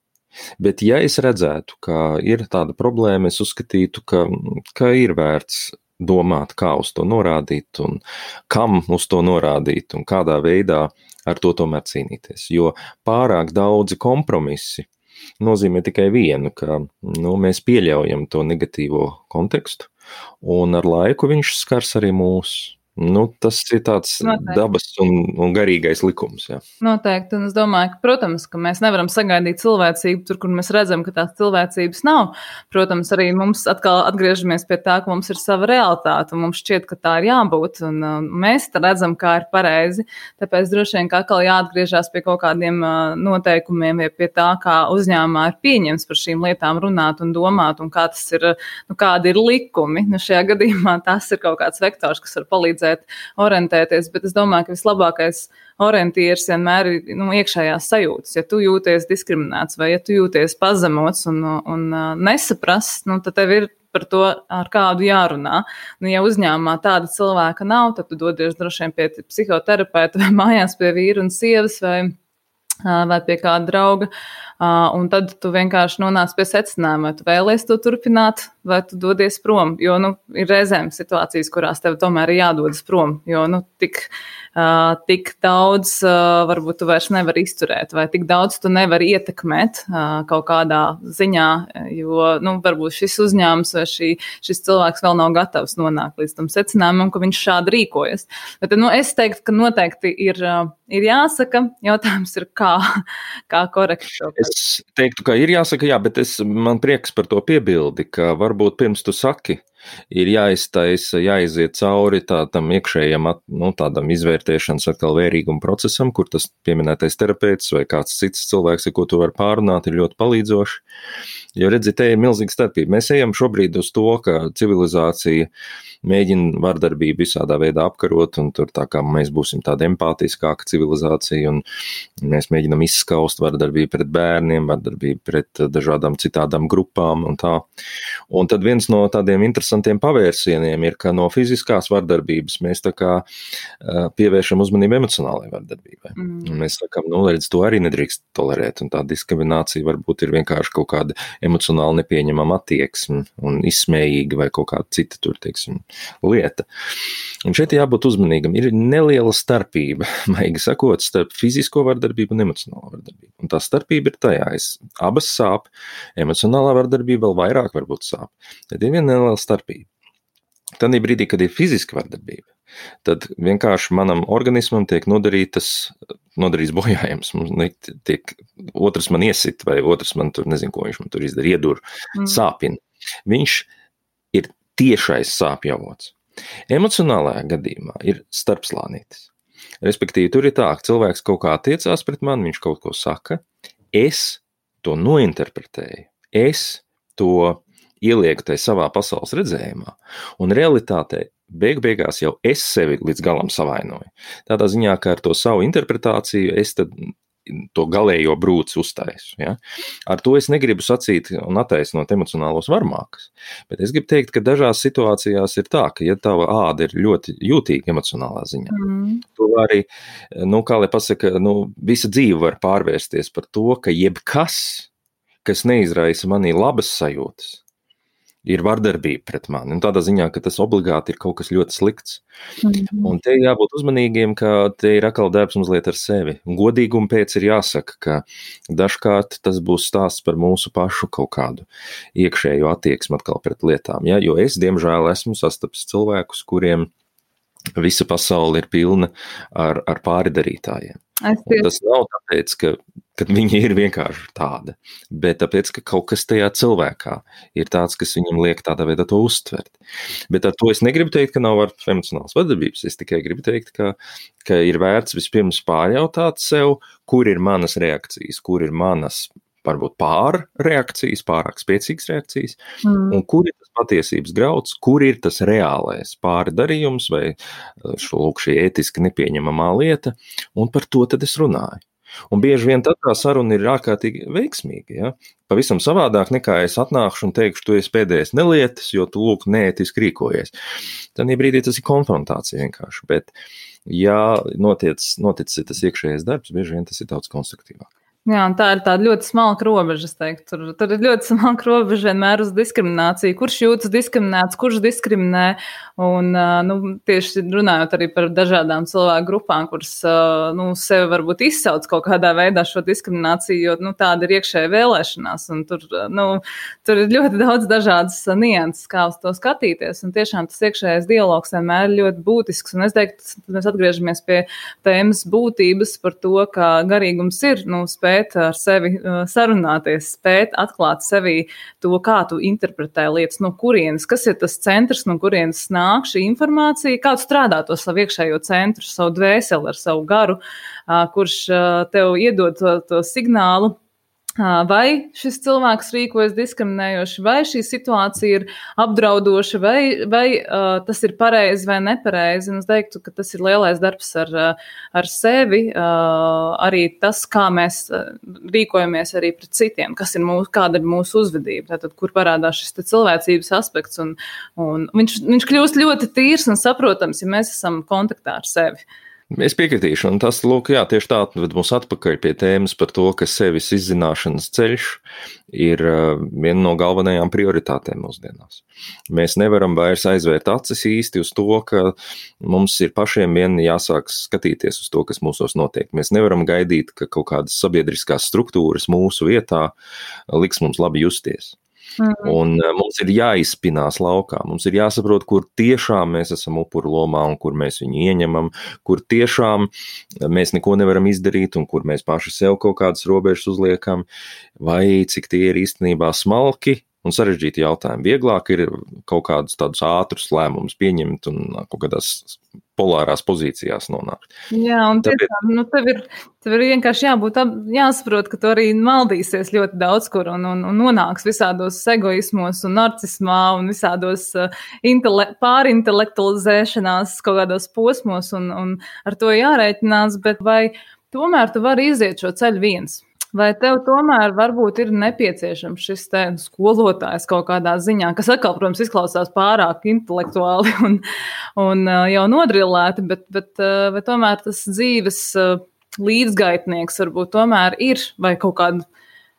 Bet ja es redzētu, ka ir tāda problēma, es uzskatītu, ka ir vērts domāt, kā uz to norādīt un kam uz to norādīt un kādā veidā ar to tomēr cīnīties. Jo pārāk daudzi kompromisi nozīmē tikai vienu, ka mēs pieļaujam to negatīvo kontekstu, un ar laiku viņš skars arī mūs. Tas ir tāds dabas un garīgais likums. Jā. Noteikti, un es domāju, ka, protams, ka mēs nevaram sagaidīt cilvēcību tur, kur mēs redzam, ka tās cilvēcības nav. Protams, arī mums atkal atgriežamies pie tā, ka mums ir sava realitāte, un mums šķiet, ka tā ir jābūt, un mēs redzam, kā ir pareizi. Tāpēc droši vien, ka atkal jāatgriežās pie kaut kādiem noteikumiem, vai pie tā, kā uzņēmumā ir pieņems par šīm lietām runāt un domāt, un kā tas ir, kādi ir likumi. Šajā gadījumā tas ir kaut kāds vektors, kas var palīdzēt orientēties, bet es domāju, ka vislabākais orientieris vienmēr ir iekšējās sajūtas. Ja tu jūties diskriminēts vai ja tu jūties pazemots un nesaprasts, tad tev ir par to, ar kādu jārunā. Ja uzņēmumā tāda cilvēka nav, tad tu dodies droši vien pie psihoterapeita vai mājās pie vīra un sievas vai vai pie kāda drauga, un tad tu vienkārši nonāc pie secinājuma, vai tu vēlies to turpināt, vai tu dodies prom, jo, ir reizēm situācijas, kurās tev tomēr ir jādodas prom, jo, tik daudz varbūt tu vairs nevari izturēt, vai tik daudz tu nevari ietekmēt kaut kādā ziņā, jo, varbūt šis uzņēmums vai šis cilvēks vēl nav gatavs nonākt līdz tam secinājumam, ka viņš šādi rīkojas. Bet, es teiktu, ka noteikti ir jāsaka, jautājums ir, kā korekti to. Es teiktu, ka ir jāsaka, jā, bet man prieks par to piebildi, ka varbūt pirms tu saki, ir jāiztaisa, jāiziet cauri tādam iekšējam, tādam izvērtēšanas atkal vērīguma procesam, kur tas pieminētais terapeits vai kāds cits cilvēks, ar ko tu vari pārunāt, ir ļoti palīdzoši. Jo redzi, te ir milzīga starpība. Mēs ejam šobrīd uz to, ka civilizācija mēģina vardarbību visādā veidā apkarot, un tur tā kā mēs būsim tāda empātiskāka civilizācija, un mēs mēģinam izskaust vardarbību pret bērniem, vardarbību pret dažādām citādām grupām un tā. Un tad viens no tādiem interesantiem pavērsieniem ir, ka no fiziskās vardarbības mēs tā kā pievēršam uzmanību emocionālajai vardarbībai. Un mēs sakam, redz, to arī nedrīkst tolerēt, un tā diskriminācija varbūt ir vienkārši kaut kāda emocionāli nepieņemama attieksme un izsmējīga vai kaut kāda cita tur, teiksim, lieta. Un šeit jābūt uzmanīgam. Ir neliela starpība, maigi sakot, starp fizisko vardarbību un emocionālo vardarbību. Un tā starpība ir tajā, abas sāp, emocionālā vardarbība vēl vairāk varbūt sāp. Tad ir viena neliela starpība. Tad brīdī, kad ir fiziska vardarbība, tad vienkārši manam organismam tiek nodarīts bojājums. Otrs man iesit, vai otrs man tur, nezinu, ko viņš man tur izdara, iedur, sāpina. Viņš ir tiešais sāpju avots. Emocionālajā gadījumā ir starpslānītis. Respektīvi, tur ir tā, ka cilvēks kaut kā attiecās pret mani, viņš kaut ko saka, es to nointerpretēju, es to ielieku tai savā pasaules redzējumā, un realitātē beigās jau es sevi līdz galam savainoju. Tādā ziņā, ka ar to savu interpretāciju es tad to galējo brūci uztaisu. Ja? Ar to es negribu sacīt un attaisnot emocionālos varmākus, bet es gribu teikt, ka dažās situācijās ir tā, ka ja tava āda ir ļoti jūtīga emocionālā ziņā, tu arī, kā lai pasaka, visa dzīve var pārvērsties par to, ka jebkas, kas neizraisa manī labas sajūtas, ir vardarbība pret mani. Un tādā ziņā, ka tas obligāti ir kaut kas ļoti slikts. Un te jābūt uzmanīgiem, ka te ir atkal darbs mazliet ar sevi. Un godīgumu pēc ir jāsaka, ka dažkārt tas būs stāsts par mūsu pašu kaut kādu iekšējo attieksmi atkal pret lietām. Ja? Jo es, diemžēl, esmu sastapis cilvēkus, kuriem visa pasaule ir pilna ar pāridarītājiem. Un tas nav tāpēc, ka viņi ir vienkārši tāda, bet tāpēc, ka kaut kas tajā cilvēkā ir tāds, kas viņam liek tādā veidā to uztvert. Bet ar to es negribu teikt, ka nav emocionālas vardarbības, es tikai gribu teikt, ka ir vērts vispirms pārjautāt sev, kur ir manas reakcijas, kur ir manas varbūt pārreakcijas, pārāk spēcīgas reakcijas, un kur ir tas patiesības grauds, kur ir tas reālais pārdarījums vai šī ētiski nepieņemamā lieta, un par to tad es runāju. Un bieži vien tad tā saruna ir ārkārtīgi veiksmīga, ja? Pavisam savādāk nekā es atnākšu un teikšu, tu esi pēdējais nelietis, jo tu lūk neētiski rīkojies. Tad brīdī tas ir konfrontācija vienkārši, bet ja noticis tas iekšējais darbs, bieži vien tas ir daudz konstruktīvāk. Jā, un tā ir tāda ļoti smalka robeža, es teiktu. Tur ir ļoti smalka robeža vienmēr uz diskrimināciju. Kurš jūtas diskriminēts, kurš diskriminē, un tieši runājot arī par dažādām cilvēku grupām, kuras sevi varbūt izsauc kaut kādā veidā šo diskrimināciju, jo tāda ir iekšēja vēlēšanās, un tur ir ļoti daudz dažādas nianses, kā uz to skatīties, un tiešām tas iekšējais dialogs vienmēr ir ļoti būtisks, un es teiktu, mēs atgriežamies pie tēmas būtības par to, ka garīgums ir, spēt ar sevi sarunāties, spēt atklāt sevī to, kā tu interpretē lietas, no kurienes, kas ir tas centrs, no kurienes nāk šī informācija, kā tu strādā to savu iekšējo centru, savu dvēseli ar savu garu, kurš tev iedod to signālu, vai šis cilvēks rīkojas diskriminējoši, vai šī situācija ir apdraudoša, vai tas ir pareizi vai nepareizi. Un es teiktu, ka tas ir lielais darbs ar sevi, arī tas, kā mēs rīkojamies arī pret citiem, kāda ir mūsu uzvedība, tātad, kur parādās šis cilvēcības aspekts, un viņš kļūst ļoti tīrs un saprotams, ja mēs esam kontaktā ar sevi. Es piekritīšu, un tas, lūk, jā, tieši tā ved mūs atpakaļ pie tēmas par to, ka sevis izzināšanas ceļš ir viena no galvenajām prioritātēm mūsdienās. Mēs nevaram vairs aizvērt acis īsti uz to, ka mums ir pašiem vien jāsāk skatīties uz to, kas mūsos notiek. Mēs nevaram gaidīt, ka kaut kādas sabiedriskās struktūras mūsu vietā liks mums labi justies. Un mums ir jāizspinās laukā, mums ir jāsaprot, kur tiešām mēs esam upuru lomā un kur mēs viņu ieņemam, kur tiešām mēs neko nevaram izdarīt un kur mēs paši sev kaut kādas robežas uzliekam, vai cik tie ir īstenībā smalki un sarežģīti jautājumi. Vieglāk ir kaut kādus tādus ātrus lēmumus pieņemt un kaut kādās polārās pozīcijās nonākt. Jā, un tiešām, tev ir vienkārši jāsaprot, ka tu arī maldīsies ļoti daudz kur un nonāks visādos egoismos un narcismā un visādos pārintelektualizēšanās kaut kādos posmos un ar to jārēķinās, bet vai tomēr tu vari iziet šo ceļu viens? Vai tev tomēr varbūt ir nepieciešams šis te skolotājs kaut kādā ziņā, kas atkal, protams, izklausās pārāk intelektuāli un jau nodrillēti, bet vai tomēr tas dzīves līdzgaitnieks varbūt tomēr ir vai kaut kāda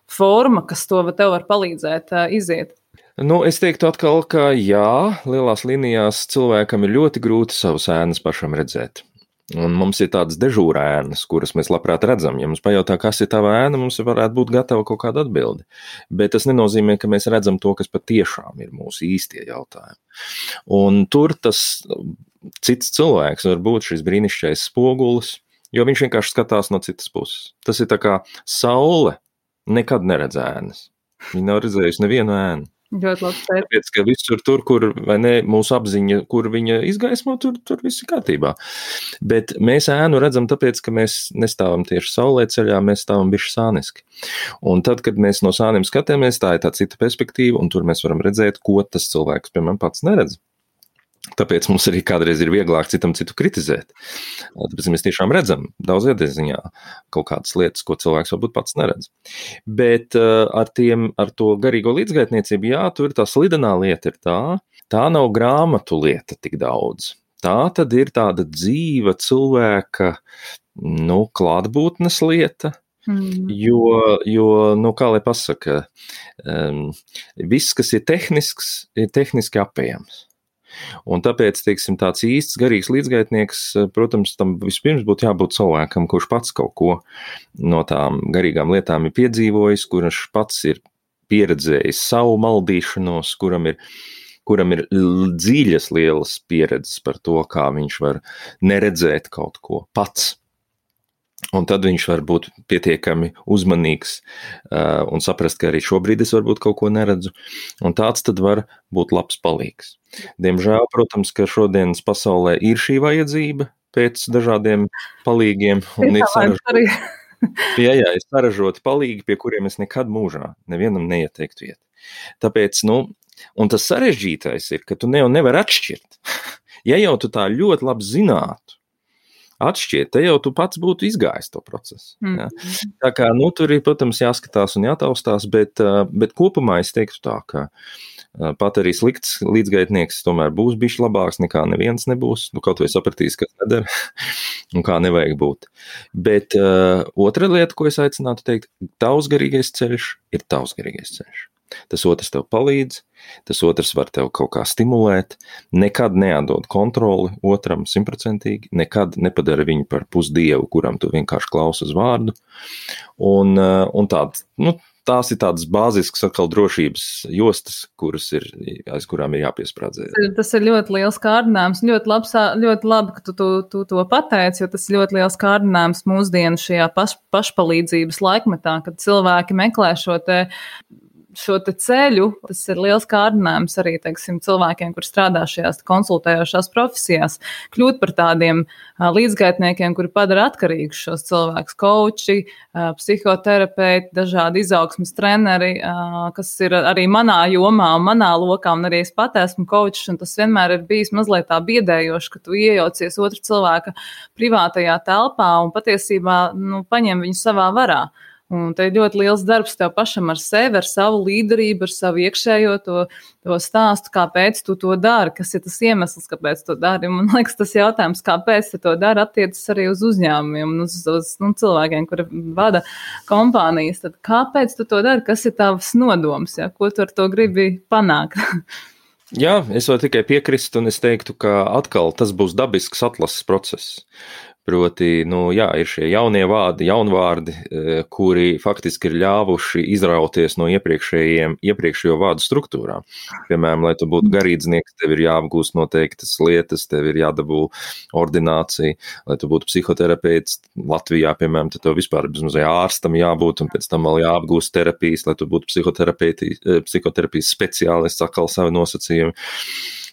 forma, kas to tev var palīdzēt iziet? Es teiktu atkal, ka jā, lielās līnijās cilvēkam ir ļoti grūti savas ēnas pašam redzēt. Un mums ir tādas dežūra ēnas, kuras mēs labprāt redzam. Ja mums pajautā, kas ir tava ēna, mums varētu būt gatava kaut kāda atbildi. Bet tas nenozīmē, ka mēs redzam to, kas patiešām ir mūsu īstie jautājumi. Un tur tas cits cilvēks var būt šis brīnišķīgais spogulis, jo viņš vienkārši skatās no citas puses. Tas ir tā kā saule nekad neredz ēnas. Viņa nav redzējusi nevienu ēnu. Ļoti labi. Tāpēc, ka visur tur, kur vai ne, mūsu apziņa, kur viņa izgaismo, tur viss ir kārtībā. Bet mēs ēnu redzam tāpēc, ka mēs nestāvam tieši saulē ceļā, mēs stāvam bišķi sāniski. Un tad, kad mēs no sāniem skatāmies, tā ir tā cita perspektīva, un tur mēs varam redzēt, ko tas cilvēks, piemēram, pats neredz. Tāpēc mums arī kādreiz ir vieglāk citam citu kritizēt. Tāpēc mēs tiešām redzam daudzajā ziņā kaut kādas lietas, ko cilvēks varbūt pats neredz. Bet ar to garīgo līdzgaitniecību, jā, tur tā slidenā lieta ir tā nav grāmatu lieta tik daudz. Tā tad ir tāda dzīva cilvēka, klātbūtnes lieta. Jo, kā lai pasaka, viss, kas ir tehniski apējams. Un tāpēc, teiksim, tāds īsts garīgs līdzgaitnieks, protams, tam vispirms būtu jābūt cilvēkam, kurš pats kaut ko no tām garīgām lietām ir piedzīvojis, kurš pats ir pieredzējis savu maldīšanos, kuram ir dziļas lielas pieredzes par to, kā viņš var neredzēt kaut ko pats. Un tad viņš var būt pietiekami uzmanīgs un saprast, ka arī šobrīd es varbūt kaut ko neredzu. Un tāds tad var būt labs palīgs. Diemžēl, protams, ka šodienas pasaulē ir šī vajadzība pēc dažādiem palīgiem. Un ir saražoti palīgi, pie kuriem es nekad mūžā nevienam neieteiktu iet. Tāpēc, un tas sarežģītais ir, ka tu nevar atšķirt. Ja jau tu tā ļoti labi zinātu, atšķiet, te jau tu pats būtu izgājis to procesu. Ja? Tā kā, tur ir, protams, jāskatās un jātaustās, bet kopumā es teiktu tā, ka pat arī slikts līdzgaitnieks tomēr būs bišķi labāks nekā neviens nebūs, kaut vai sapratīs, kas nedara un kā nevajag būt. Bet otra lieta, ko es aicinātu teikt, tavs garīgais ceļš ir tavs garīgais ceļš. Tas otrs tev palīdz, tas otrs var tev kaut kā stimulēt, nekad neatdod kontroli otram 100%, nekad nepadara viņu par pusdievu, kuram tu vienkārši klausi uz vārdu. Un tās ir tādas bāziskas atkal drošības jostas, aiz kurām ir jāpiesprādzē. Tas ir ļoti liels kārdinājums, ļoti labi, ka tu to pateici, jo tas ir ļoti liels kārdinājums mūsdienu šajā pašpalīdzības laikmetā, kad cilvēki meklē šo te ceļu. Tas ir liels kārdinājums arī, teiksim, cilvēkiem, kur strādā šajās konsultējošās profesijās, kļūt par tādiem līdzgaitniekiem, kuri padara atkarīgus šos cilvēkus, koči, psihoterapeiti, dažādi izaugsmes treneri, kas ir arī manā jomā un manā lokā, un arī es pat esmu kočs, un tas vienmēr ir bijis mazliet tā biedējoši, ka tu iejaucies otra cilvēka privātajā telpā un patiesībā, paņem viņu savā varā. Un te ir ļoti liels darbs tev pašam ar sevi, ar savu līderību, ar savu iekšējo to stāstu, kāpēc tu to dari, kas ir tas iemesls, kāpēc to dari. Man liekas, tas jautājums, kāpēc tu to dari, attiecas arī uz uzņēmumiem un uz cilvēkiem, kuri vada kompānijas. Tad kāpēc tu to dari? Kas ir tavs nodoms? Ja? Ko tu ar to gribi panākt? Jā, es varu tikai piekrist, un es teiktu, ka atkal tas būs dabisks atlases process. Proti, ir šie jaunie vārdi, jaunvārdi, kuri faktiski ir ļāvuši izrauties no iepriekšējo vārdu struktūrām. Piemēram, lai tu būtu garīdznieks, tev ir jāapgūst noteiktas lietas, tev ir jādabū ordinācija, lai tu būtu psihoterapeits. Latvijā, piemēram, tad tev vispār bezmazliet ārstam jābūt, un pēc tam vēl jāapgūst terapijas, lai tu būtu psihoterapijas speciālists, atkal savi nosacījumi.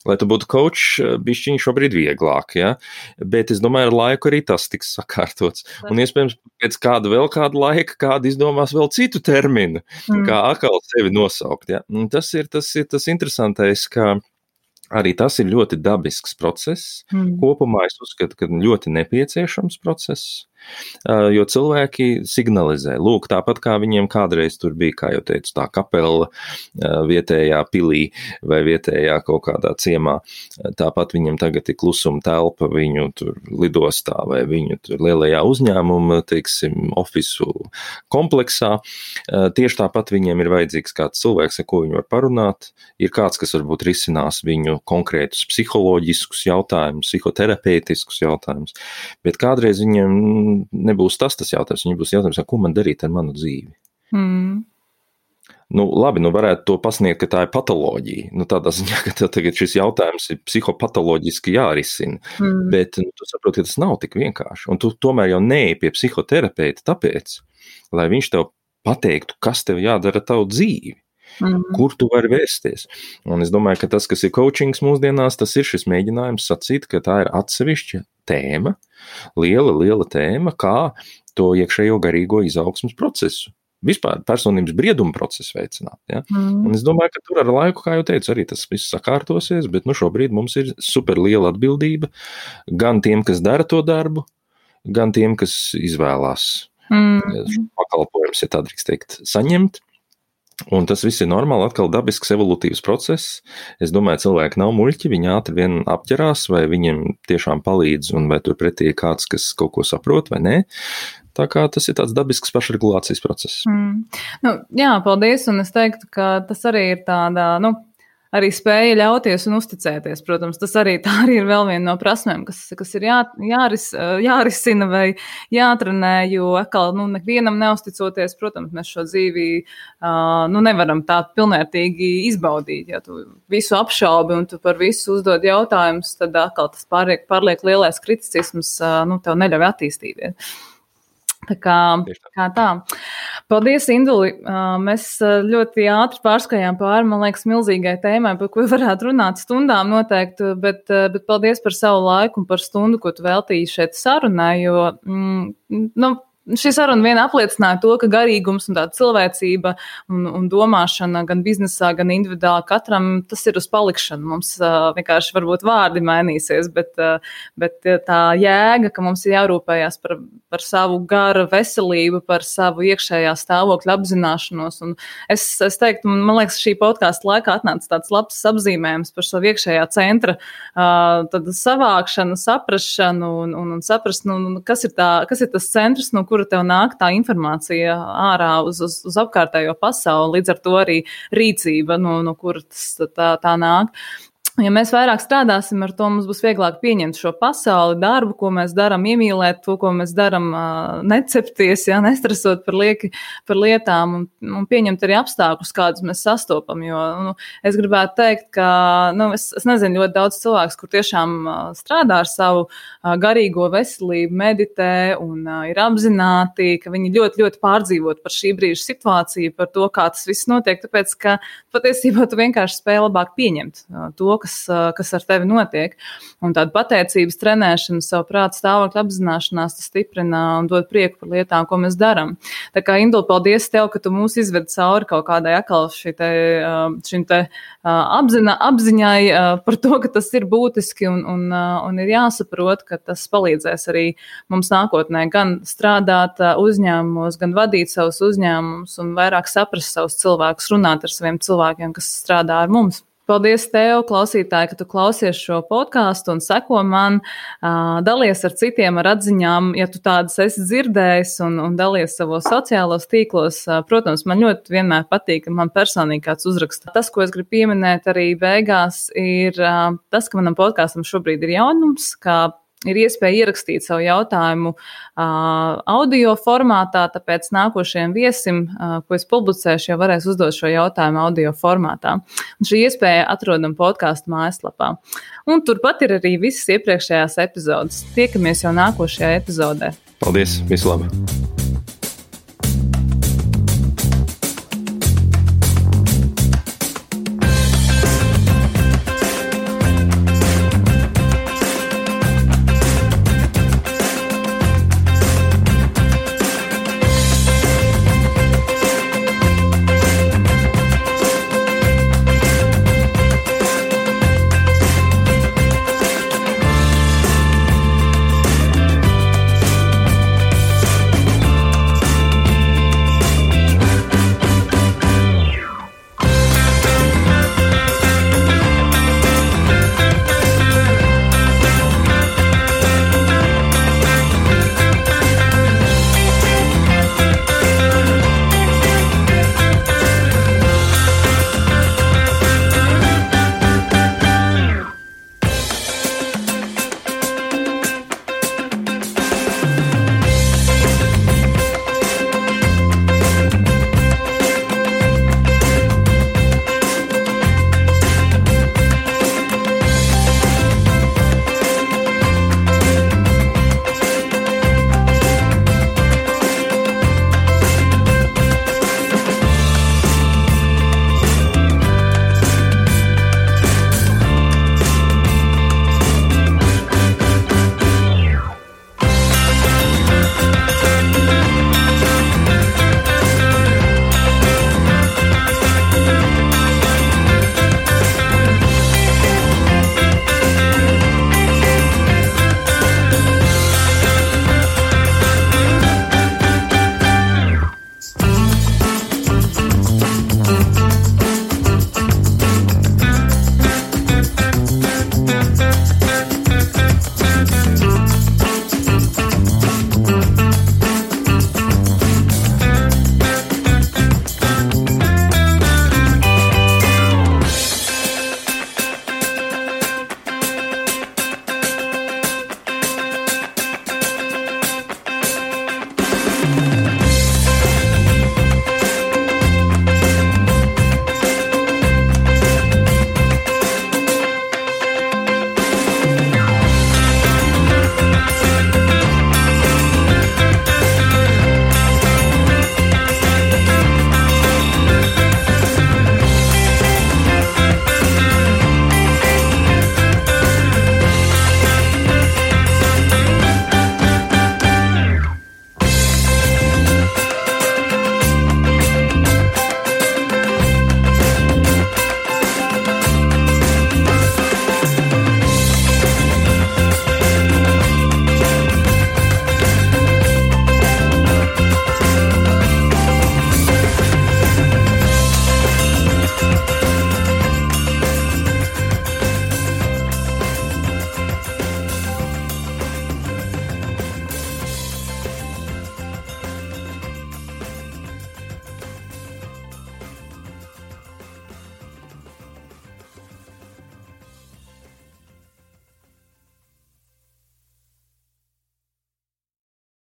Lai tu būtu coach, bišķiņ šobrīd vieglāk, ja? Bet es domāju, ar laiku arī tas tiks sakārtots. Un iespējams, pēc kāda laika, kāda izdomās vēl citu terminu, kā atkal sevi nosaukt. Ja? Un tas ir tas interesantais, ka arī tas ir ļoti dabisks process. Kopumā es uzskatu, ka ļoti nepieciešams process. Jo cilvēki signalizē, lūk, tāpat kā viņiem kādreiz tur bija, kā jau teicu, tā kapela vietējā pilī vai vietējā kaut kādā ciemā, tāpat viņiem tagad ir klusuma telpa viņu tur lidostā vai viņu tur lielajā uzņēmuma, teiksim, ofisu kompleksā. Tieši tāpat viņiem ir vajadzīgs kāds cilvēks, ar ko viņi var parunāt, ir kāds, kas varbūt risinās viņu konkrētus psiholoģiskus jautājumus, psihoterapeitiskus jautājumus, bet kādreiz viņiem nebūs tas jautājums, viņam būs jautājums, ko man darīt ar manu dzīvi. Labi, varētu to pasniegt, ka tā ir patoloģija. Tādā ziņā, ka tev tagad šis jautājums ir psihopatoloģiski jārisina. Bet tu saproti, ka tas nav tik vienkārši. Un tu tomēr jau neej pie psihoterapeita tāpēc, lai viņš tev pateiktu, kas tev jādara ar tavu dzīvi. Kur tu vari vērsties. Un es domāju, ka tas, kas ir coachings mūsdienās, tas ir šis mēģinājums sacīt, ka tā ir atsevišķa tēma, liela tēma, kā to iekšējo garīgo izaugsmas procesu. Vispār personības brieduma procesu veicināt. Ja? Un es domāju, ka tur ar laiku, kā jau teicu, arī tas viss sakārtosies, bet šobrīd mums ir super liela atbildība gan tiem, kas dara to darbu, gan tiem, kas izvēlās pakalpojumus, ja tā drīkst teikt, saņemt. Un tas viss ir normāli, atkal dabisks evolutīvs process. Es domāju, cilvēki nav muļķi, viņi ātri vien apķerās, vai viņiem tiešām palīdz, un vai tur pretī ir kāds, kas kaut ko saprot, vai nē. Tā kā tas ir tāds dabisks pašregulācijas process. Jā, paldies, un es teiktu, ka tas arī ir tāda, arī spēja ļauties un uzticēties. Protams, tas arī ir vēl viena no prasmēm, kas ir jārisina vai jātrenē, jo atkal, nevienam neusticoties, protams, mēs šo dzīvi, nevaram tā pilnvērtīgi izbaudīt. Ja tu visu apšaubi un tu par visu uzdod jautājumus, tad atkal tas pārliek lielais kriticisms, tev neļauj attīstīties. Tā kā tā. Paldies, Induli. Mēs ļoti ātri pārskājām pāri, man liekas, milzīgai tēmai, par ko varētu runāt stundām noteikti, bet paldies par savu laiku un par stundu, ko tu veltīji šeit sarunai, jo, šī saruna vien apliecināja to, ka garīgums un tāda cilvēcība un domāšana gan biznesā, gan individuāli katram, tas ir uz palikšanu. Mums vienkārši varbūt vārdi mainīsies, bet tā jēga, ka mums ir jārūpējās par savu gara veselību, par savu iekšējā stāvokļa apzināšanos. Un es teiktu, man liekas, šī podkāsta laikā atnāca tāds labs apzīmējums par savu iekšējā centra tad savākšanu, saprašanu un saprast, kas ir tas centrs, no kura tev nāk tā informācija ārā uz apkārtējo pasauli, līdz ar to arī rīcība, no kuras tā nāk. Ja mēs vairāk strādāsim ar to, mums būs vieglāk pieņemt šo pasauli, darbu, ko mēs darām, iemīlēt to, ko mēs darām, necepties, nestresot par lietām un pieņemt arī apstākļus, kādus mēs sastopam. Jo es gribētu teikt, ka es nezinu ļoti daudz cilvēks, kur tiešām strādā ar savu garīgo veselību, meditē un ir apzināti, ka viņi ļoti, ļoti pārdzīvot par šī brīža situāciju, par to, kā tas viss notiek, tāpēc, ka patiesībā tu vienkārši spēj labāk pieņemt to, kas kas ar tevi notiek. Un tāda pateicības trenēšana, savu prātu stāvokļa apzināšanās, tas stiprina un dod prieku par lietām, ko mēs darām. Tā kā, Indula, paldies tev, ka tu mūs izvedi cauri kaut kādai atkal šim te apziņai par to, ka tas ir būtiski un ir jāsaprot, ka tas palīdzēs arī mums nākotnē gan strādāt uzņēmumos, gan vadīt savus uzņēmumus un vairāk saprast savus cilvēkus, runāt ar saviem cilvēkiem, kas strādā ar mums. Paldies tev, klausītāji, ka tu klausies šo podcastu un seko man, dalies ar citiem ar atziņām, ja tu tādas esi dzirdējis un dalies savos sociālos tīklos. Protams, man ļoti vienmēr patīk, ka man personīgi kāds uzraksta. Tas, ko es gribu pieminēt arī beigās, ir tas, ka manam podkastam šobrīd ir jaunums, ka ir iespēja ierakstīt savu jautājumu audio formātā, tāpēc nākošajam viesim, ko es publicēšu, jau varēs uzdot šo jautājumu audio formātā. Un šī iespēja atrodam podcastu mājaslapā. Un turpat ir arī visas iepriekšējās epizodes. Tiekamies jau nākošajā epizodē. Paldies, visu labu!